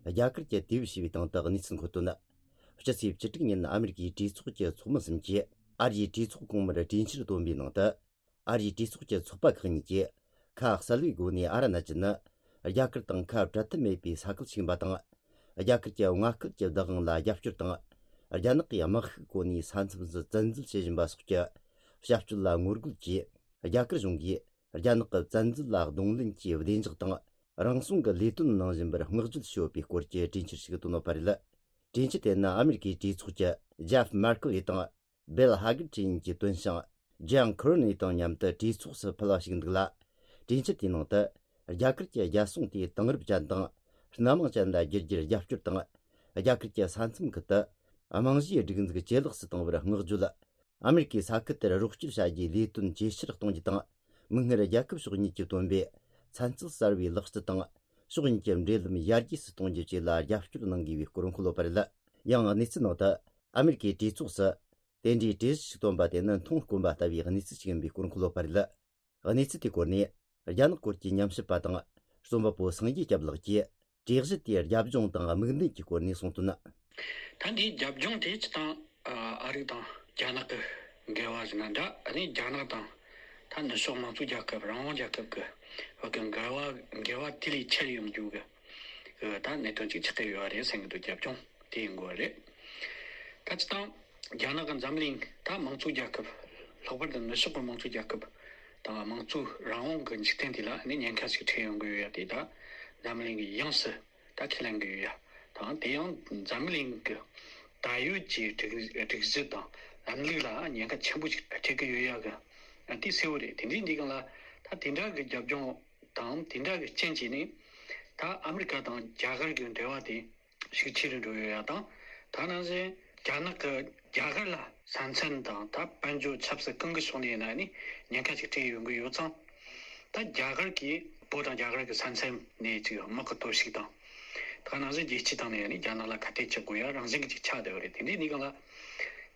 རྒྱ་གར་གྱིས་དེ་བས་བྱས་པའི་སྟེང་དུ་གནས་ཚུལ་འཁོད་དོན། སྤྱི་ཚེས་བཅུ་དྲུག་ཉིན་ཨ་མེ་རི་ཀའི་གྲོས་ཚོགས་ཀྱི་ཚོགས་མི་གསུམ་གྱིས་ཨ་རིའི་གྲོས་ཚོགས་གོང་མར་གྲོས་འཆར་བཏོན་པའི་ནང་དུ། ཨ་རིའི་གྲོས་ཚོགས་ཀྱི་ཚོགས་པ་ཁག་གཉིས་ཀྱིས་ཁ་གསལ་བའི་སྒོ་ནས་ཨ་རུ་ན་ཅལ་ནི་རྒྱ་གར་དང་ཁ་བྲལ་ཐབས་མེད་པའི་ས་ཁུལ་ཞིག་ཡིན་པ་དང་། རྒྱ་གར་གྱི་མངའ་སྐད་ཀྱི་བདག་དབང་ལ་རྒྱབ་སྐྱོར་དང་། རྒྱ་ནག་གིས་དམག་ཤུགས་བཀོལ་ནས་ས་མཚམས་སུ་བཙན་འཛུལ་བྱེད་བཞིན་པ་སོགས་ཀྱི་བྱ་སྤྱོད་ལ་ངོ་རྒོལ་གྱིས། རྒྱ་གར་གཞུང་གིས་རྒྱ་ནག་གི་བཙན་འཛུལ་ལ་གདོང་ལེན་གྱི་བདེ་འཇགས་དང་། རང་སྲུང་གི་ལས་དོན་གནང་བཞིན་པར་བསྔགས་བརྗོད་བྱས་ཡོད་པའི་སྐོར་གྱི་གྲོས་འཆར་ཞིག་བཏོན་ཡོད་པ་རེད། གྲོས་འཆར་དེ་ནི་ཨ་མེ་རི་ཀའི་གྲོས་ཚོགས་ཀྱི་ཇེབ་མར་ཀེ་ལི་དང་། སྦེལ་ཧ་གར་གྲས་གཉིས་ཀྱིས་བཏོན་ཞིང་། ཇོན་ཁུར་ནི་དང་མཉམ་དུ་གྲོས་ཚོགས་སུ་ཕུལ་བ་ཞིག་འདུག་ལ། གྲོས་འཆར་དེའི་ནང་དུ། རྒྱ་གར་གྱི་རྒྱལ་སྲུང་དེ་དེང་རབས་ཅན་དང་། སྣ་མང་ཅན་ལ་བསྒྱུར་རྒྱུར་རྒྱབ་སྐྱོར་དང་། རྒྱ་གར་གྱི་ས་མཚམས་ཁུལ་དུ། རྨང་གཞིའི་སྒྲིག་འཛུགས་ཇེ་ལེགས་སུ་གཏོང་བར་བསྔགས་བརྗོད། ཨ་མེ་རི་ཀའི་ས་ཁུལ་དེར་རོགས་སྐྱོར་བྱ་རྒྱུའི་ལས་དོན་ཇེ་ཆེར་གཏོང་རྒྱུ་དང་། མིག་སྔར་རྒྱལ་ཁབ་ཕྱོགས་གཉིས་ཀྱིས་བཏོན་པའི་ཚན་རྩལ་གསར་བའི་ལག་རྩལ་དང་། ཕྱོགས་གཉིས་ཀྱི་འབྲེལ་ལམ་ཡར་རྒྱས་སུ་གཏོང་རྒྱུ་བཅས་ལ་རྒྱབ་སྐྱོར་གནང་དགོས་པའི་སྐོར་འཁོད་ཡོད་པ་རེད། ཡང་གནས་ཚུལ་ནང་དུ། ཨ་མེ་རི་ཀའི་གྲོས་ཚོགས་སུ། དེ་འདྲའི་གྲོས་གཞི་ཞིག་བཏོན་པ་དེ་ནི་མཐོང་དཀོན་པ་ལྟ་བུའི་གནས་ཚུལ་ཞིག་ཡིན་པའི་སྐོར་འཁོད་ཡོད་པ་རེད། གནས་ཚུལ་དེའི་སྐོར་ནས། རྒྱ་ནག་སྐོར་གྱི་ཉམས་ཞིབ་པ་དང་། རྩོམ་པ་པོ་སངས་རྒྱས་སྐྱབས་ལགས་ཀྱིས། གྲོས་གཞི་དེའི་རྒྱབ་ལྗོངས་དང་དམིགས་འདུན་གྱི་སྐོར་ནས་གསུངས་དོན། ད་འདིའི་རྒྱབ་ལྗོངས་དེ་སྤྱིར་བཏང་། ཨ་རི་དང་རྒྱ་ནག་གི་འགལ་བ་ཟེར་ན་འདྲ། ཨ་ནི་རྒྱ་ནག་དང་། ད་ནུབ་ཕྱོགས་དམངས་གཙོ་རྒྱལ་ཁབ། རང་དབང་རྒྱལ་ཁབ་ཀྱི་བར་གྱི་འགལ་བ། འགལ་བ་དེ་ལས་ཆེར་ཡོང་རྒྱུ་གི། ཨ་ད་གནད་དོན་ཅིག་ཆགས་ཀྱི་ཡོད་རེད་བསམ་གྱི་འདུག་རྒྱབ་ལྗོངས་དེ་ཡིན་དགོས་རེད། ད་སྤྱིར་བཏང་རྒྱ་ནག་གི་འཛམ་གླིང་། ད་དམངས་གཙོ་རྒྱལ་ཁབ། ལྷག་པར་དུ་ནུབ་ཕྱོགས་ཀྱི་དམངས་གཙོ་རྒྱལ་ཁབ་དང་། དམངས་གཙོ་རང་དབང་གི་འཇིག་རྟེན་དེ་ལ་ནི་ཉེན་ཁ་ཞིག་འཕྲད་ཡོང་གི་ཡོད་ཡ་དེ། ད་འཛམ་གླིང་གི་ཡོངས་སུ་ད་ཁས་ལེན་གྱི་ཡོད་ཡ་དང་། དེ་ཡང་འཛམ་གླིང་གི་ད་ཡོད་ཀྱི་སྒྲིག་སྒྲིག་གཞི་དང་ལམ་ལུགས་ལ་ཉེན་ཁ་ཆེན་པོ་ཞིག་འཕྲད་ཀྱི་ཡོད་ཡ་གི་དེ་གསལ་བོ་རེད། དེ་འདྲའི་འདི་སྒང་ལ་ད་དེ་འདྲ་གི་རྒྱབ་ལྗོངས་དང་། དེ་འདྲ་གི་རྐྱེན་གྱིས་ནི། ད་ཨ་མི་རི་ཀ་དང་རྒྱ་གར་གྱི་འབྲེལ་བ་དེ་ཤུགས་ཆེ་རུ་འགྲོ་ཡོད་ཡ་དང་། ད་ནང་བཞིན་རྒྱ་ནག་གི་རྒྱ་གར་ལ་ས་མཚམས་དང་། ད་དཔལ་འབྱོར་ཆབ་སྲིད་གང་གི་ཕྱོགས་ནས་ཡིན་ན་ནི་ཉེན་ཁ་ཅིག་འཕྲད་ཡོང་གི་ཡོད་ཙང་། ད་རྒྱ་གར་གྱིས་བོད་དང་རྒྱ་གར་གྱི་ས་མཚམས་ནས་ཅིག་དམག་གི་གཏོར་བཤིག་དང་། ད་ནང་བཞིན་རྒྱལ་སྤྱིའི་སྟེང་ནས་ནི་རྒྱ་ནག་ལ་ཁ་གཏད་གཅོག་དགོས་ཡ་རང་བཞིན་གྱི་ཅིག་ཆགས་བསྡད་པ་རེད། དེ་འདྲའི་གནས་སྟངས་ལ་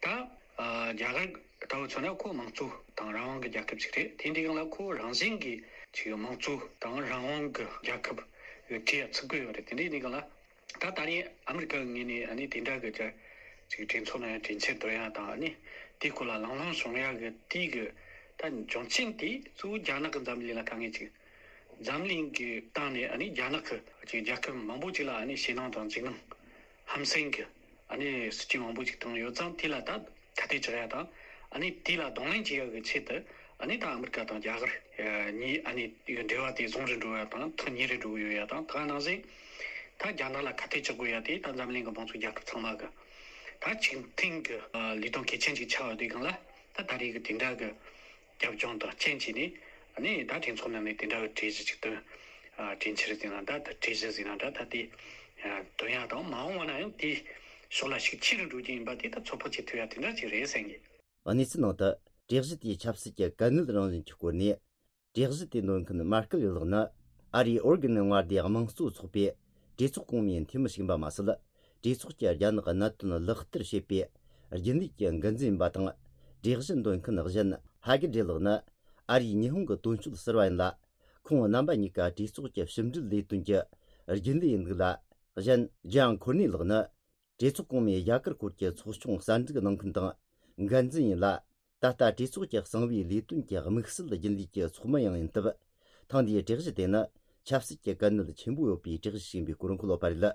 ད། ཨ་རྒྱ་གར་ལྟ་བུ་མཚོན་ན་ཁོ་དམངས་གཙོ་དང་རང་དབང་གི་རྒྱལ་ཁབ་ཅིག་རེད། དེ་འདྲའི་སྒང་ལ་ཁོ་རང་བཞིན་གྱི་ཅིག་དམངས་གཙོ་དང་རང་དབང་གི་རྒྱལ་ཁབ་ཡོད་གྲས་ཚུད་དགོས་ཡོད་རེད། དེ་འདྲའི་གནས་སྟངས་ལ། ད་ད་རེས་ཨ་མི་རི་ཀ་གི་ངོས་ནས་ཨ་ནི་དེ་འདྲ་གི་ཅིག་གྲོས་ཚོགས་ནང་གྲོས་འཆར་འདོན་ཡ་དང་། ཨ་ནི་དེའི་སྐོར་ལ་གླེང་སློང་བྱུང་ཡ་གི་དེའི་གི་ད་འབྱུང་རྐྱེན་དེ་གཙོ་བོ་རྒྱ་ནག་གི་འཛམ་གླིང་ལ་དཀའ་ངལ་ཅིག་འཛམ་གླིང་གི་སྟེང་ནས་ཨ་ནི་རྒྱ་ནག་གི་ཅིག་རྒྱལ་ཁབ་མང་པོ་ཅིག་ལ་ཨ་ནི་ཞེད་སྣང་དང་འཇིགས་སྣང་ཧམ་སེམས་ཀྱི་ཨ་ནི་སྲིད་ཇུས་མང་པོ་ཅིག་བཏིང་ཡོད་ཙང་། དེ་ལ་ད་ཁ་གཏད་གཅོག་ཡ་དང་། ཨ་ནི་དེ་ལ་གདོང་ལེན་བྱེད་ཡ་གི་ཆེད་དུ། ཨ་ནི་ད་ཨ་མི་རི་ཀ་དང་རྒྱ་གར་གཉིས་ཨ་ནི་འབྲེལ་བ་དེ་བཟང་རུ་འགྲོ་ཡ་དང་། ཐག་ཉེ་རུ་འགྲོ་གི་ཡོད་ཡ་དང་། ད་ནང་བཞིན་ད་རྒྱ་ནག་ལ་ཁ་གཏད་གཅོག་དགོས་ཡ་དེ་ད་འཛམ་གླིང་གི་དམངས་གཙོ་རྒྱལ་ཁབ་ཚང་མ་གི་ད་ཆིག་མཐུན་གི་ལས་དོན་གལ་ཆེན་ཅིག་ཆགས་ཡོད་དུས་སྒང་ལ། ད་ད་རེས་གི་དེ་འདྲ་གི་རྒྱབ་ལྗོངས་དང་རྐྱེན་བྱས་ནས། ཨ་ནི་ད་གྲོས་ཚོགས་ནང་ནས་དེ་འདྲ་གི་གྲོས་གཞི་ཅིག་བཏོན། ཨ་གྲོས་འཆར་ཟེར་ན་འདྲ། ད་གྲོས་གཞི་ཟེར་ན་འདྲ། ད་དེ་ཨ་བཏོན་ཡ་དང་། མ་འོངས་པ་ན་ཡང་དེའི་ཕྱོགས་ལ་ཤུགས་ཆེ་རུ་འགྲོ་རྒྱུ་ཡིན་པ་དེ་ད་ཚོད་དཔག་བྱེད་ཐུབ་ཡ་དེ་འདྲ་ཅིག་རེད་བསམ་གི། གནས་ཚུལ་ནང་དུ་གྲོས་གཞི་དེའི་ཆབ་སྲིད་ཀྱི་གལ་གནད་རང་བཞིན་གྱི་སྐོར་ནས། གྲོས་གཞི་དེ་འདོན་མཁན་མར་ཀེ་ལི་ལགས་ནི། ཨ་རིའི་ཨོར་གན་མངའ་སྡེའི་དམངས་གཙོ་ཚོགས་པའི་གྲོས་ཚོགས་གོང་མའི་འཐུས་མི་ཞིག་ཡིན་པ་མ་ཟད། གྲོས་ཚོགས་ཀྱི་རྒྱ་ནག་གནད་དོན་ལག་བསྟར་བྱེད་པའི་རྒྱུན་ལས་ཀྱི་འགན་འཛིན་ཡིན་པ་དང་། གྲོས་གཞི་འདོན་མཁན་གཞན་ཧ་གི་ཏྲེ་ལགས་ནི། ཨ་རིའི་ཉི་ཧོང་གི་དོན་གཅོད་ཟུར་པ་ཡིན་ལ། ཁོང་རྣམ་པ་གཉིས་ཀ་གྲོས་ཚོགས་ཀྱི་ཕྱི་འབྲེལ་ལས་དོན་གྱི་རྒྱུན་ལས་ཡིན་འདུག་ལ། གཞན་ཇོན་ཁོར་ནི་ལགས་ནི། གྲོས་ཚོགས་གོང་མའི་རྒྱ་གར་སྐོར་གྱི་ཚོགས་ཆུང་གསར་འཛུགས་གནང་མཁན་དང་འགན་འཛིན་ཡིན་ལ། ད་ལྟ་གྲོས་ཚོགས་ཀྱི་གསང་བའི་ལས་དོན་གྱི་དམིགས་བསལ་རྒྱུན་ལས་ཀྱི་ཚོགས་མི་ཡང་ཡིན་སྟབས། ཐེངས་འདིའི་གྲོས་གཞི་དེ་ནི་ཆབ་སྲིད་ཀྱི་གལ་གནད་ཆེན་པོ་ཡོད་པའི་གྲོས་གཞི་ཞིག་ཡིན་པའི་སྐོར་འཁོད་ཡོད་པ་རེད།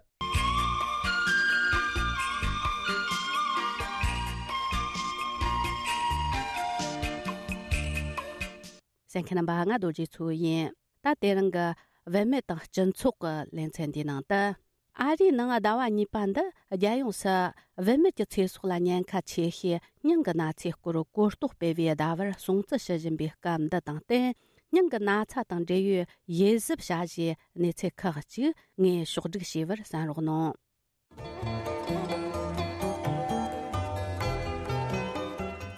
གསན་མཁན་རྣམ་པ། ང་རྡོ་རྗེ་མཚོ་ཡིན། ད་དེ་རིང་གི་བུད་མེད་དང་སྤྱི་ཚོགས་ཀྱི་ལེ་ཚན་འདིའི་ནང་དུ། ཨ་རིའི་ནང་ཟླ་བ་གཉིས་པ་འདི་རྒྱལ་ཡོངས་སུ་བུད་མེད་ཀྱི་ཚེ་སྲོག་ལ་ཉེན་ཁ་ཆེ་ཤོས་སྙིང་གི་ན་ཚའི་སྐོར་གོ་རྟོགས་སྤེལ་བའི་ཟླ་བར་སྲུང་བརྩི་ཞུ་བཞིན་པའི་སྐབས་འདི་དང་བསྟུན། སྙིང་གི་ན་ཚ་དང་འབྲེལ་ཡོད་ཡིད་གཟབ་བྱ་གཞིའི་གནས་ཚུལ་ཁག་ཅིག་ངས་ཕྱོགས་བསྒྲིགས་བྱས་པར་གསན་རོགས་གནང་།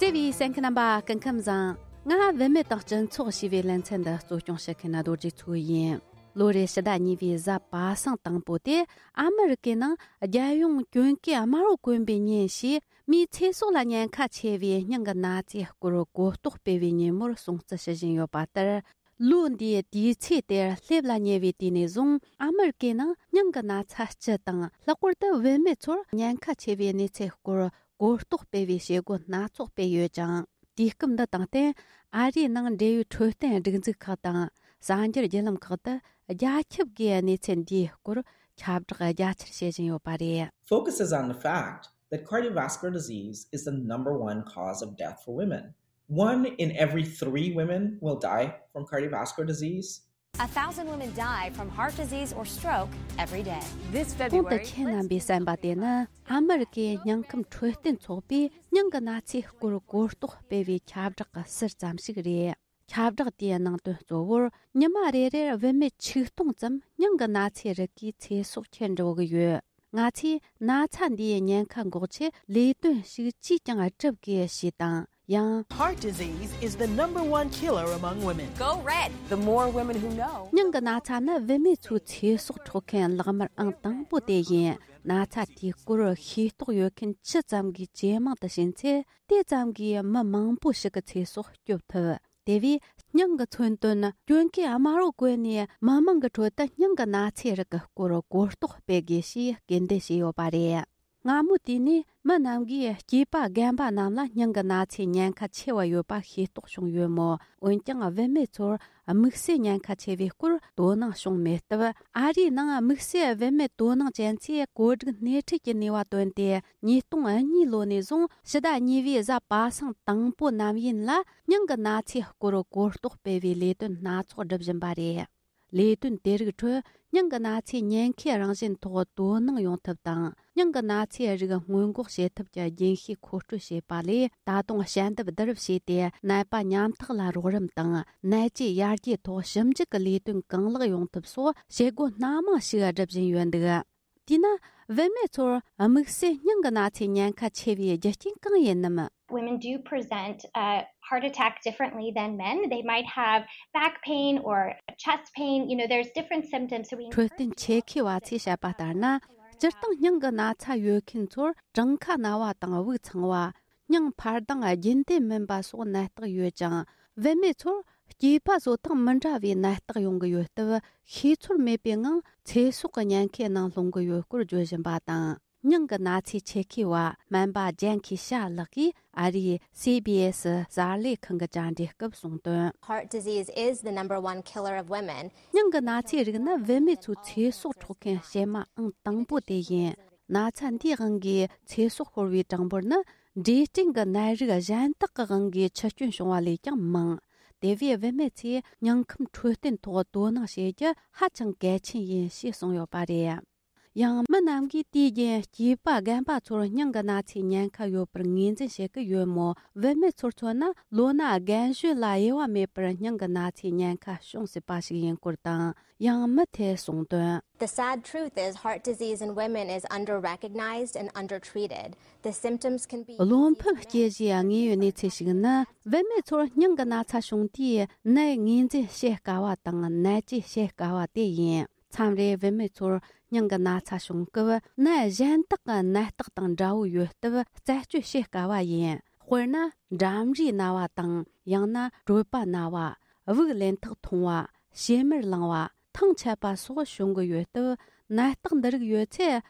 བརྩེ་བའི་གསན་མཁན་རྣམ་པ། སྐུ་ཁམས་བཟང་། ང་བུད་མེད་དང་སྤྱི་ཚོགས་ཞེས་པའི་ལེ་ཚན་འདི་གཙོ་སྐྱོང་བྱེད་མཁན་རྡོ་རྗེ་མཚོ་ཡིན། ལོ་རེའི་ཕྱི་ཟླ་གཉིས་པའི་གཟའ་པ་སངས་དང་པོ་དེ་ཨ་མི་རི་ཀའི་ནང་རྒྱལ་ཡོངས་གྱོན་གོས་དམར་པོ་གོན་པའི་ཉིན་ཞེས་མིའི་ཚེ་སྲོག་ལ་ཉེན་ཁ་ཆེ་བའི་སྙིང་གི་ན་ཚའི་སྐོར་གོ་རྟོགས་སྤེལ་བའི་ཉིན་མོར་སྲུང་བརྩི་ཞུ་བཞིན་ཡོད་པ་ལྟར། ལོ་འདིའི་དུས་ཚེས་དེར་སླེབས་ལ་ཉེ་བའི་དུས་ནས་བཟུང་ཨ་མི་རི་ཀའི་ནང་སྙིང་གི་ན་ཚ་སྤྱི་དང་། ལྷག་པར་དུ་བུད་མེད་ཚོར་ཉེན་ཁ་ཆེ་བའི་གནས་ཚུལ་སྐོར་གོ་རྟོགས་སྤེལ་བའི་བྱེད་སྒོ་སྣ་ཚོགས་སྤེལ་ཡོད་ཅིང་། དུས་སྐབས་འདི་དང་བསྟུན། ཨ་རིའི་ནང་འབྲེལ་ཡོད་འཕྲོད་བསྟེན་སྒྲིག་འཛུགས་ཁག་དང་གསར་འགྱུར་བརྒྱུད་ལམ་ཁག་ཏུ་རྒྱ་ཁྱབ་ཀྱིས་གནས་ཚུལ་འདིའི་སྐོར་ཁྱབ་བསྒྲགས་རྒྱ་ཆེར་བྱེད་བཞིན་ཡོད་པ་རེད། Focuses on the fact that cardiovascular disease is the number one cause of death for women. One in every three women will die from cardiovascular disease. A thousand women die from heart disease or stroke every day. This February, གོང་དུ་ཁྱེད་རྣམ་པས་གསན་པ་དེ་ནི་ཨ་མི་རི་ཀའི་སྙིང་ཁམས་འཕྲོད་བསྟེན་ཚོགས་པས་སྙིང་གི་ན་ཚའི་སྐོར་གོ་རྟོགས་སྤེལ་བའི་ཁྱབ་བསྒྲགས་ཀྱི་ཟུར་ཙམ་ཞིག་རེད། ཁྱབ་བསྒྲགས་དེའི་ནང་དོན་གཙོ་བོར་ཉི་མ་རེ་རེར་བུད་མེད་ཆིག་སྟོང་ཙམ་སྙིང་གི་ན་ཚའི་རིགས་ཀྱི་ཚེ་སྲོག་ཁྱེར་འགྲོ་གི་ཡོད། ང་ཚོས་ན་ཚ་འདིའི་ཉེན་ཁ་འགོག་ཆེད་ལས་དོན་ཞིག་ཅིས་ཀྱང་བསྒྲུབ་དགོས་ཞེས་དང་། ཡང་། Heart disease is the number one killer among women. Go red. The more women who know, སྙིང་གི་ན་ཚ་ནི་བུད་མེད་ཚོའི་ཚེ་སྲོག་འཕྲོག་མཁན་ལག་དམར་ཨང་དང་པོ་དེ་ཡིན། ན་ཚ་དེའི་སྐོར་ཤེས་རྟོགས་ཡོད་མཁན་ཇི་ཙམ་གྱིས་ཇེ་མང་དུ་ཕྱིན་ཚེ། དེ་ཙམ་གྱིས་མི་མང་པོ་ཞིག་གི་ཚེ་སྲོག་སྐྱོབ་ཐུབ། དེ་བས་སྙིང་གི་མཚོན་དོན་གྱོན་གོས་དམར་པོ་གོན་ནས་མི་མང་གི་ཁྲོད་དུ་སྙིང་གི་ན་ཚའི་རིགས་ཀྱི་སྐོར་གོ་རྟོགས་སྤེལ་དགོས་ཞེས་སྐུལ་འདེད་བྱས་ཡོད་པ་རེད། སྔ་མོ་དུས་ནས་མི་རྣམས་ཀྱིས་སྐྱེས་པ་རྒན་པ་རྣམས་ལ་སྙིང་གི་ན་ཚའི་ཉེན་ཁ་ཆེ་བ་ཡོད་པ་ཤེས་རྟོགས་བྱུང་ཡོད་མོད། འོན་ཀྱང་བུད་མེད་ཚོར་དམིགས་བསལ་ཉེན་ཁ་ཆེ་བའི་སྐོར་དོ་སྣང་བྱུང་མེད་སྟབས། ཨ་རིའི་ནང་དམིགས་བསལ་བུད་མེད་དོ་སྣང་ཅན་ཚོས་བཀོད་སྒྲིག་སྣེ་ཁྲིད་ཀྱི་ནུས་པ་བཏོན་ཏེ། ཉིས་སྟོང་གཉིས་ལོ་ནས་བཟུང་ཕྱི་ཟླ་གཉིས་པའི་གཟའ་པ་སངས་དང་པོ་ནམ་ཡིན་ལ་སྙིང་གི་ན་ཚའི་སྐོར་གོ་རྟོགས་སྤེལ་བའི་ལས་དོན་སྣ་ཚོགས་སྒྲུབ་བཞིན་པ་རེད། ལས་དོན་དེ་རིགས་ཁྲོད་སྙིང་གི་ན་ཚའི་ཉེན་ཁའི་རང་བཞིན་ཐོག་དོ་སྣང་ཡོང་ཐབས་དང་། སྙིང་གི་ན་ཚའི་རིགས་སྔོན་འགོག་བྱེད་ཐབས་ཀྱི་རྒྱུན་ཤེས་མཁོ་སྤྲོད་བྱས་པ་ལས། ད་དུང་ཞལ་འདེབས་བསྡུ་རུབ་བྱས་ཏེ། ནད་པ་ཉམ་ཐག་ལ་རོགས་རམ་དང་། ནད་བཅོས་ཡར་རྒྱས་ཐོག་ཞིབ་འཇུག་གི་ལས་དོན་གང་ལེགས་ཡོང་ཐབས་སོགས་བྱེད་སྒོ་སྣ་མང་ཞིག་སྒྲུབ་བཞིན་ཡོད་འདུག། དེས་ན། བུད་མེད་ཚོར་དམིགས་བསལ་སྙིང་གི་ན་ཚའི་ཉེན་ཁ་ཆེ་བའི་རྒྱུ་རྐྱེན་གང་ཡིན་ནམ། Women do present a heart attack differently than men. They might have back pain or chest pain. You know, there's different symptoms. So we འཕྲོད་བསྟེན་ཆེད་མཁས་པ་ཚོས་བཤད་པ་ལྟར་ན། སྤྱིར་བཏང་སྙིང་གི་ན་ཚ་ཡོད་མཁན་ཚོར་བྲང་ཁ་ན་བ་དང་དབུགས་འཚང་བ། སྙིང་འཕར་ལྡང་རྒྱུན་ལྡན་མིན་པ་སོགས་ནད་རྟགས་ཡོད་ཅིང་། བུད་མེད་ཚོར་སྐྱེས་པ་བཟོ་སྟངས་མི་འདྲ་བའི་ནད་རྟགས་ཡོང་གི་ཡོད་སྟབས། ཤེས་ཚོར་མེད་པའི་ངང་ཚེ་སྲོག་གི་ཉེན་ཁའི་ནང་ལྷུང་གི་ཡོད་སྐོར་བརྗོད་བཞིན་པ་དང་། སྙིང་གི་ན་ཚའི་ཆེད་མཁས་པ་སྨན་པ་ཇན་ཁི་ཤ་ལགས་ཀྱིས་ཨ་རིའི་སི་བི་ཨེ་སི་གསར་ལས་ཁང་གི་བཅར་འདྲི་སྐབས་གསུངས་དོན། Heart disease is the number one killer of women. སྙིང་གི་ན་ཚའི་རིགས་ནི་བུད་མེད་ཚོའི་ཚེ་སྲོག་འཕྲོག་མཁན་གཤེད་མ་ཨང་དང་པོ་དེ་ཡིན། ན་ཚ་འདིའི་དབང་གིས་ཚེ་སྲོག་ཤོར་བའི་གྲངས་འབོར་ནི་འབྲས་སྐྲན་གྱི་ནད་རིགས་གཞན་དག་གི་དབང་གིས་འཆི་སྐྱོན་བྱུང་བ་ལས་ཀྱང་མང་། དེ་བས་བུད་མེད་ཚོས་སྙིང་ཁམས་འཕྲོད་བསྟེན་ཐོག་དོ་སྣང་བྱེད་རྒྱུ་ཧ་ཅང་གལ་ཆེན་ཡིན་ཞེས་གསུངས་ཡོད་པ་རེད། ཡང་མི་རྣམས་ཀྱིས་དུས་རྒྱུན་སྐྱེས་པ་རྒན་པ་ཚོར་སྙིང་གི་ན་ཚའི་ཉེན་ཁ་ཡོད་པར་ངོས་འཛིན་བྱེད་ཀྱི་ཡོད་མོད། བུད་མེད་ཚོར་མཚོན་ན། ལོ་ན་རྒན་གཞོན་ལ་དབྱེ་བ་མེད་པར་སྙིང་གི་ན་ཚའི་ཉེན་ཁ་བྱུང་སྲིད་པ་ཞིག་ཡིན་སྐོར་དང་། ཡང་མི་དེས་གསུངས་དོན། The sad truth is, heart disease in women is underrecognized and undertreated. The symptoms can be བློ་ཕམ་སྐྱེ་གཞིའི་དངོས་ཡོད་གནས་ཚུལ་ཞིག་ནི། བུད་མེད་ཚོར་སྙིང་གི་ན་ཚ་བྱུང་དུས་ནད་ངོས་འཛིན་བྱེད་དཀའ་བ་དང་ནད་བཅོས་བྱེད་དཀའ་བ་དེ་ཡིན། མཚམས་རེ་བུད་མེད་ཚོར་སྙིང་གི་ན་ཚ་བྱུང་སྐབས། ནད་གཞན་དག་གི་ནད་རྟགས་དང་འདྲ་བོ་ཡོད་སྟབས་རྩད་གཅོད་བྱེད་དཀའ་བ་ཡིན། དཔེར་ན། འགྲམ་རའི་ན་བ་དང་། ཡང་ན་གྲོད་པ་ན་བ། དབུགས་ལེན་ཐག་ཐུང་བ། བྱེ་མར་ལངས་པ། ཐང་ཆད་པ་སོགས་བྱུང་གི་ཡོད་སྟབས། ནད་རྟགས་འདི་རིགས་ཡོད་ཚེ།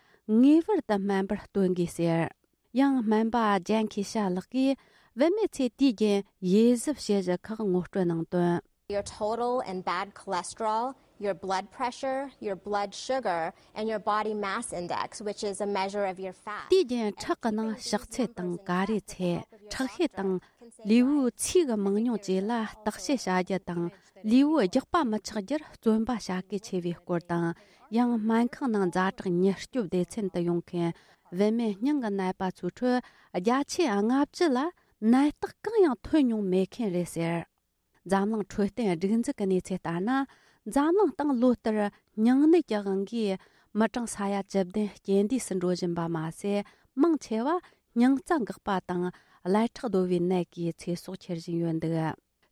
ངེས་པར་དུ་སྨན་པར་སྟོན་དགོས་ཟེར། ཡང་སྨན་པ་ཇན་ཁི་ཤ་ལགས་ཀྱིས། བུད་མེད་ཚོས་དུས་རྒྱུན་ཡིད་གཟབ་བྱེད་གཞི་ཁག་ངོ་སྤྲོད་གནང་དོན། Your total and bad cholesterol. your blood pressure, your blood sugar, and your body mass index, which is a measure of your fat. དེའི་རྐྱེན་ཁྲག་གི་ནང་ཕྱག་ཚད་དང་ཀ་རའི་ཚད། ཁྲག་ཤེད་དང་། ལུས་པོའི་ཚིས་ཀྱི་མང་ཉུང་བཅས་ལ་བརྟག་དཔྱད་བྱ་རྒྱུ་དང་། ལུས་པོའི་རྒྱགས་པ་མི་ཆགས་རྒྱུར་བརྩོན་པ་བྱ་གལ་ཆེ་བའི་སྐོར་དང་། ཡང་སྨན་ཁང་ནང་ཛ་དྲག་ཉེན་སྐྱོབ་སྡེ་ཚན་དུ་ཡོང་མཁན་བུད་མེད་སྙིང་གི་ནད་པ་ཚོའི་ཁྲོད་བརྒྱ་ཆའི་ལྔ་བཅུ་ལ་ནད་རྟགས་གང་ཡང་ཐོན་མྱོང་མེད་མཁན་རེད་ཟེར། འཛམ་གླིང་འཕྲོད་བསྟེན་སྒྲིག་འཛུགས་ཀྱི་གནས་ཚུལ་ལྟར་ན། འཛམ་གླིང་སྟེང་ལོ་ལྟར་སྙིང་ནད་ཀྱི་དབང་གིས་མི་གྲངས་ས་ཡ་བཅུ་བདུན་རྐྱེན་འདས་སུ་འགྲོ་བཞིན་པ་མ་ཟད། མང་ཆེ་བ་སྙིང་རྩ་འགག་པ་དང་ཀླད་ཁྲག་རྡོལ་བའི་ནད་ཀྱིས་ཚེ་སྲོག་ཁྱེར་བཞིན་ཡོད་འདུག་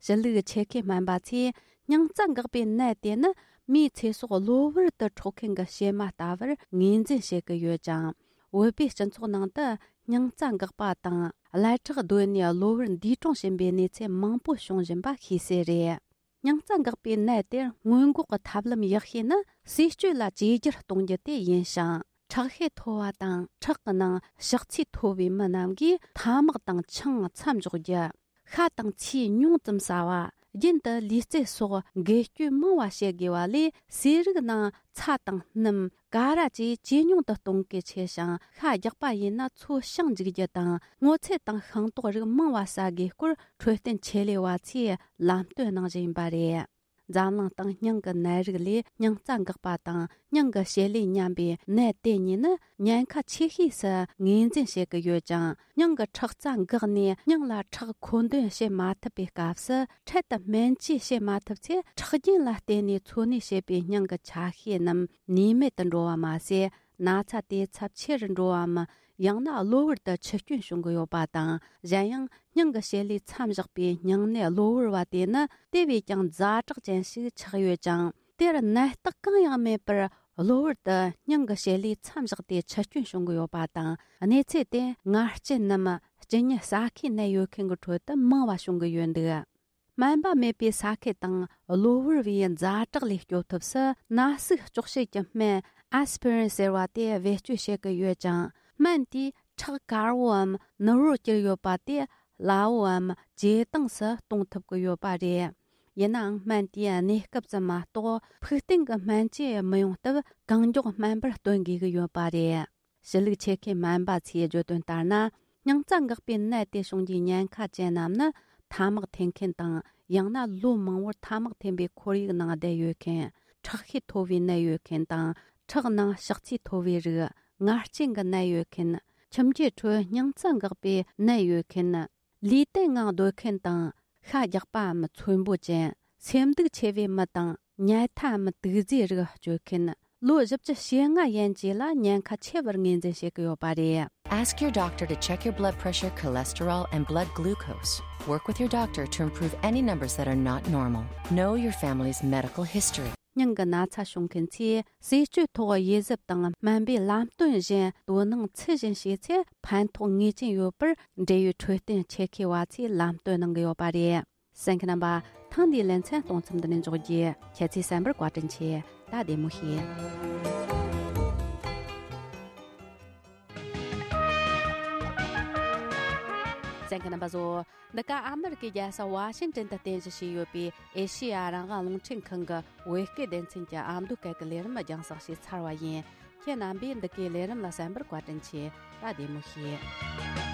ཕྱི་ལུགས་ཆེད་མཁས་སྨན་པ་ཚོས་སྙིང་རྩ་འགག་པའི་ནད་དེ་ནི་མིའི་ཚེ་སྲོག་གློ་བུར་དུ་འཕྲོག་མཁན་གྱི་གཤེད་མ་ལྟ་བུར་ངོས་འཛིན་བྱེད་ཀྱི་ཡོད་ཅིང་། བོད་པའི་སྤྱི་ཚོགས་ནང་དུ་སྙིང་རྩ་འགག་པ་དང་ཀླད་ཁྲག་རྡོལ་ནས་གློ་བུར་འདས་གྲོངས་ཕྱིན་པའི་གནས་ཚུལ་མང་པོ་བྱུང་བཞིན་པ་ཤེས་གསལ་རེད། སྙིང་རྩ་འགག་པའི་ནད་དེར་སྔོན་འགོག་གི་ཐབས་ལམ་ཡག་ཤོས་ནི་ཟས་སྤྱོད་ལ་བཅོས་བསྒྱུར་གཏོང་རྒྱུ་དེ་ཡིན་ཞིང་། ཁྲག་ཤེད་མཐོ་བ་དང་ཁྲག་གི་ནང་ཕྱག་ཚད་མཐོ་བའི་མི་རྣམས་ཀྱིས་ཐ་མག་དང་ཆང་མཚམས་འཇོག་རྒྱུ། ཤ་དང་ཚིལ་ཉུང་ཙམ་ཟ་བ། རྒྱུན་དུ་ལུས་རྩལ་སོགས་འགུལ་སྐྱོད་མང་བ་བྱེད་དགོས་པ་ལས། ཟས་རིགས་ནང་ཚྭ་དང་སྣུམ། ཀ་ར་བཅས་ཇེ་ཉུང་དུ་གཏོང་གལ་ཆེ་ཞིང་། ཤ་རྒྱགས་པ་ཡིན་ན་ཚོས་ཤིང་འཇུག་རྒྱུ་དང་། སྔོ་ཚལ་དང་ཤིང་ཏོག་རིགས་མང་བ་ཟ་དགོས་སྐོར་འཕྲོད་བསྟེན་ཆེད་ལས་པ་ཚོས་ལམ་སྟོན་གནང་བཞིན་པ་རེད། འཛམ་གླིང་སྟེང་སྙིང་གི་ནད་རིགས་ལས་སྙིང་རྩ་འགག་པ་དང་སྙིང་གི་བྱེད་ལས་ཉམས་པའི་ནད་དེ་གཉིས་ནི་ཉེན་ཁ་ཆེ་ཤོས་སུ་ངོས་འཛིན་བྱེད་ཀྱི་ཡོད་ཅིང་། སྙིང་གི་ཁྲག་རྩ་འགགས་ནས་སྙིང་ལ་ཁྲག་མཁོ་འདོན་བྱེད་མ་ཐུབ་པའི་སྐབས་སུ། འཕྲལ་དུ་སྨན་བཅོས་བྱེད་མ་ཐུབ་ཚེ། ཁྲག་རྒྱུན་ལ་བརྟེན་ནས་འཚོ་གནས་བྱེད་པའི་སྙིང་གི་ཆ་ཤས་རྣམས་ནུས་མེད་དུ་འགྲོ་བ་མ་ཟད། ན་ཚ་དེ་ཚབས་ཆེ་རུ་འགྲོ་བའམ། ཡང་ན་གློ་བུར་དུ་འཆི་སྐྱོན་བྱུང་གི་ཡོད་པ་དང་། གཞན་ཡང་། སྙིང་གི་བྱེད་ལས་མཚམས་བཞག་པའི་སྙིང་ནད་གློ་བུར་བ་དེ་ནི་དེ་བས་ཀྱང་ཛ་དྲག་ཅན་ཞིག་ཆགས་ཡོད་ཅིང་། དེར་ནད་རྟགས་གང་ཡང་མེད་པར་གློ་བུར་དུ་སྙིང་གི་བྱེད་ལས་མཚམས་བཞག་སྟེ་འཆི་སྐྱོན་བྱུང་གི་ཡོད་པ་དང་། གནས་ཚུལ་དེ་ངར་སྐྱེས་ནམ་གཅིན་སྙི་ཟ་ཁའི་ནད་ཡོད་མཁན་གྱི་ཁྲོད་དུ་མང་བ་བྱུང་གི་ཡོད་འདུག་སྨན་པ་མེད་པའི་ས་ཁུལ་དང་གློ་བུར་བའི་ཛ་དྲག་ལས་སྐྱོབ་ཐབས་སུ། ན་ཟུག་གཅོག་བྱེད་ཀྱི་སྨན་ཨེ་སི་པི་རིན་ཟེར་བ་དེ་བེད་སྤྱོད་བྱེད་ཀྱི་ཡོད་ཅིང་། སྨན་དེས་ཁྲག་དཀར་བོའམ་ནུར་བོར་གྱུར་ཡོད་པ་དེ་སླ་བོའམ་ཇེ་དྭངས་སུ་གཏོང་ཐུབ་ཀྱི་ཡོད་པ་རེད། ཡིན་ནའང་། སྨན་དེའི་གནས་སྐབས་ཙམ་མ་གཏོགས། ཕུགས་བརྟན་གྱི་སྨན་བཅོས་མི་ཡོང་སྟབས། གང་མགྱོགས་སྨན་པར་སྟོན་དགོས་ཀྱི་ཡོད་པ་རེད། ཕྱི་ལུགས་ཆེད་མཁས་སྨན་པ་ཚོས་བརྗོད་དོན་ལྟར་ན། སྙིང་རྩ་འགག་པའི་ནད་དེ་བྱུང་རྒྱུའི་ཉེན་ཁ་ཅན་རྣམས་ནི། ཐ་མག་འཐེན་མཁན་དང་། ཡང་ན་ལོ་མང་པོར་ཐ་མག་འཐེན་པའི་ཁོར་ཡུག་ནང་བསྡད་ཡོད་མཁན། ཁྲག་ཤེད་མཐོ་བའི་ནད་ཡོད་མཁན་དང་། ཁྲག་ནང་ཕྱག་ཚིལ་མཐོ་བའི་རིགས། ངར་སྐྱེས་ཀྱི་ནད་ཡོད་མཁན། ཁྱིམ་རྒྱུད་ཁྲོད་སྙིང་རྩ་འགག་པའི་ནད་ཡོད་མཁན། ལུས་སྟེང་ངང་སྡོད་མཁན་དང་། ཤ་རྒྱགས་པའམ་ཚོས་འབོ་ཅན། སེམས་སྡུག་ཆེ་བའི་མི་དང་། ཉལ་ཐའམ་དུག་རྫས་རིགས་སྤྱོད་མཁན། ལོ་བཞི་བཅུ་ཞེ་ལྔ་ཡན་ཆད་ལ་ཉེན་ཁ་ཆེ་བར་ངོས་འཛིན་བྱེད་ཀྱི་ཡོད་པ་རེད། Ask your doctor to check your blood pressure, cholesterol, and blood glucose. Work with your doctor to improve any numbers that are not normal. Know your family's medical history. སྙིང་གི་ན་ཚ་བྱུང་མཁན་ཚོས་ཟས་སྤྱོད་ཐོག་དབྱེ་གཟབ་དང་སྨན་པའི་ལམ་སྟོན་བཞིན་དོ་སྣང་ཚུལ་བཞིན་བྱས་ཚེ་ཕན་ཐོགས་ངེས་ཅན་ཡོད་པར་འབྲེལ་ཡོད་འཕྲོད་བསྟེན་ཆེད་མཁས་པ་ཚོས་ལམ་སྟོན་གནང་གི་ཡོད་པ་རེད། གསན་མཁན་རྣམ་པ། ཐེངས་འདིའི་ལེ་ཚན་གཏོང་མཚམས་འདི་ནས་འཇོག་རྒྱུ། ཁྱེད་ཚོས་གསན་པར་བཀའ་དྲིན་ཆེ། ད་བདེ་མོ་བྱོས། གསན་མཁན་རྣམ་པ་ཚོ། འདི་ག་ཨ་མི་རི་ཀའི་རྒྱལ་ས་ཝ་ཤིང་ཏན་དུ་རྟེན་གཞི་བྱས་ཡོད་པའི་ཨེ་ཤེ་ཡ་རང་དབང་རླུང་འཕྲིན་ཁང་གི་བོད་སྐད་སྡེ་ཚན་གྱི་ཨ་མདོ་སྐད་ཀྱི་ལས་རིམ་རྒྱང་བསྒྲགས་བྱས་ཚར་བ་ཡིན། ཁྱེད་རྣམ་པས་འདི་གའི་ལས་རིམ་ལ་གསན་པར་བཀའ་དྲིན་ཆེ། ད་བདེ་མོ་བྱོས།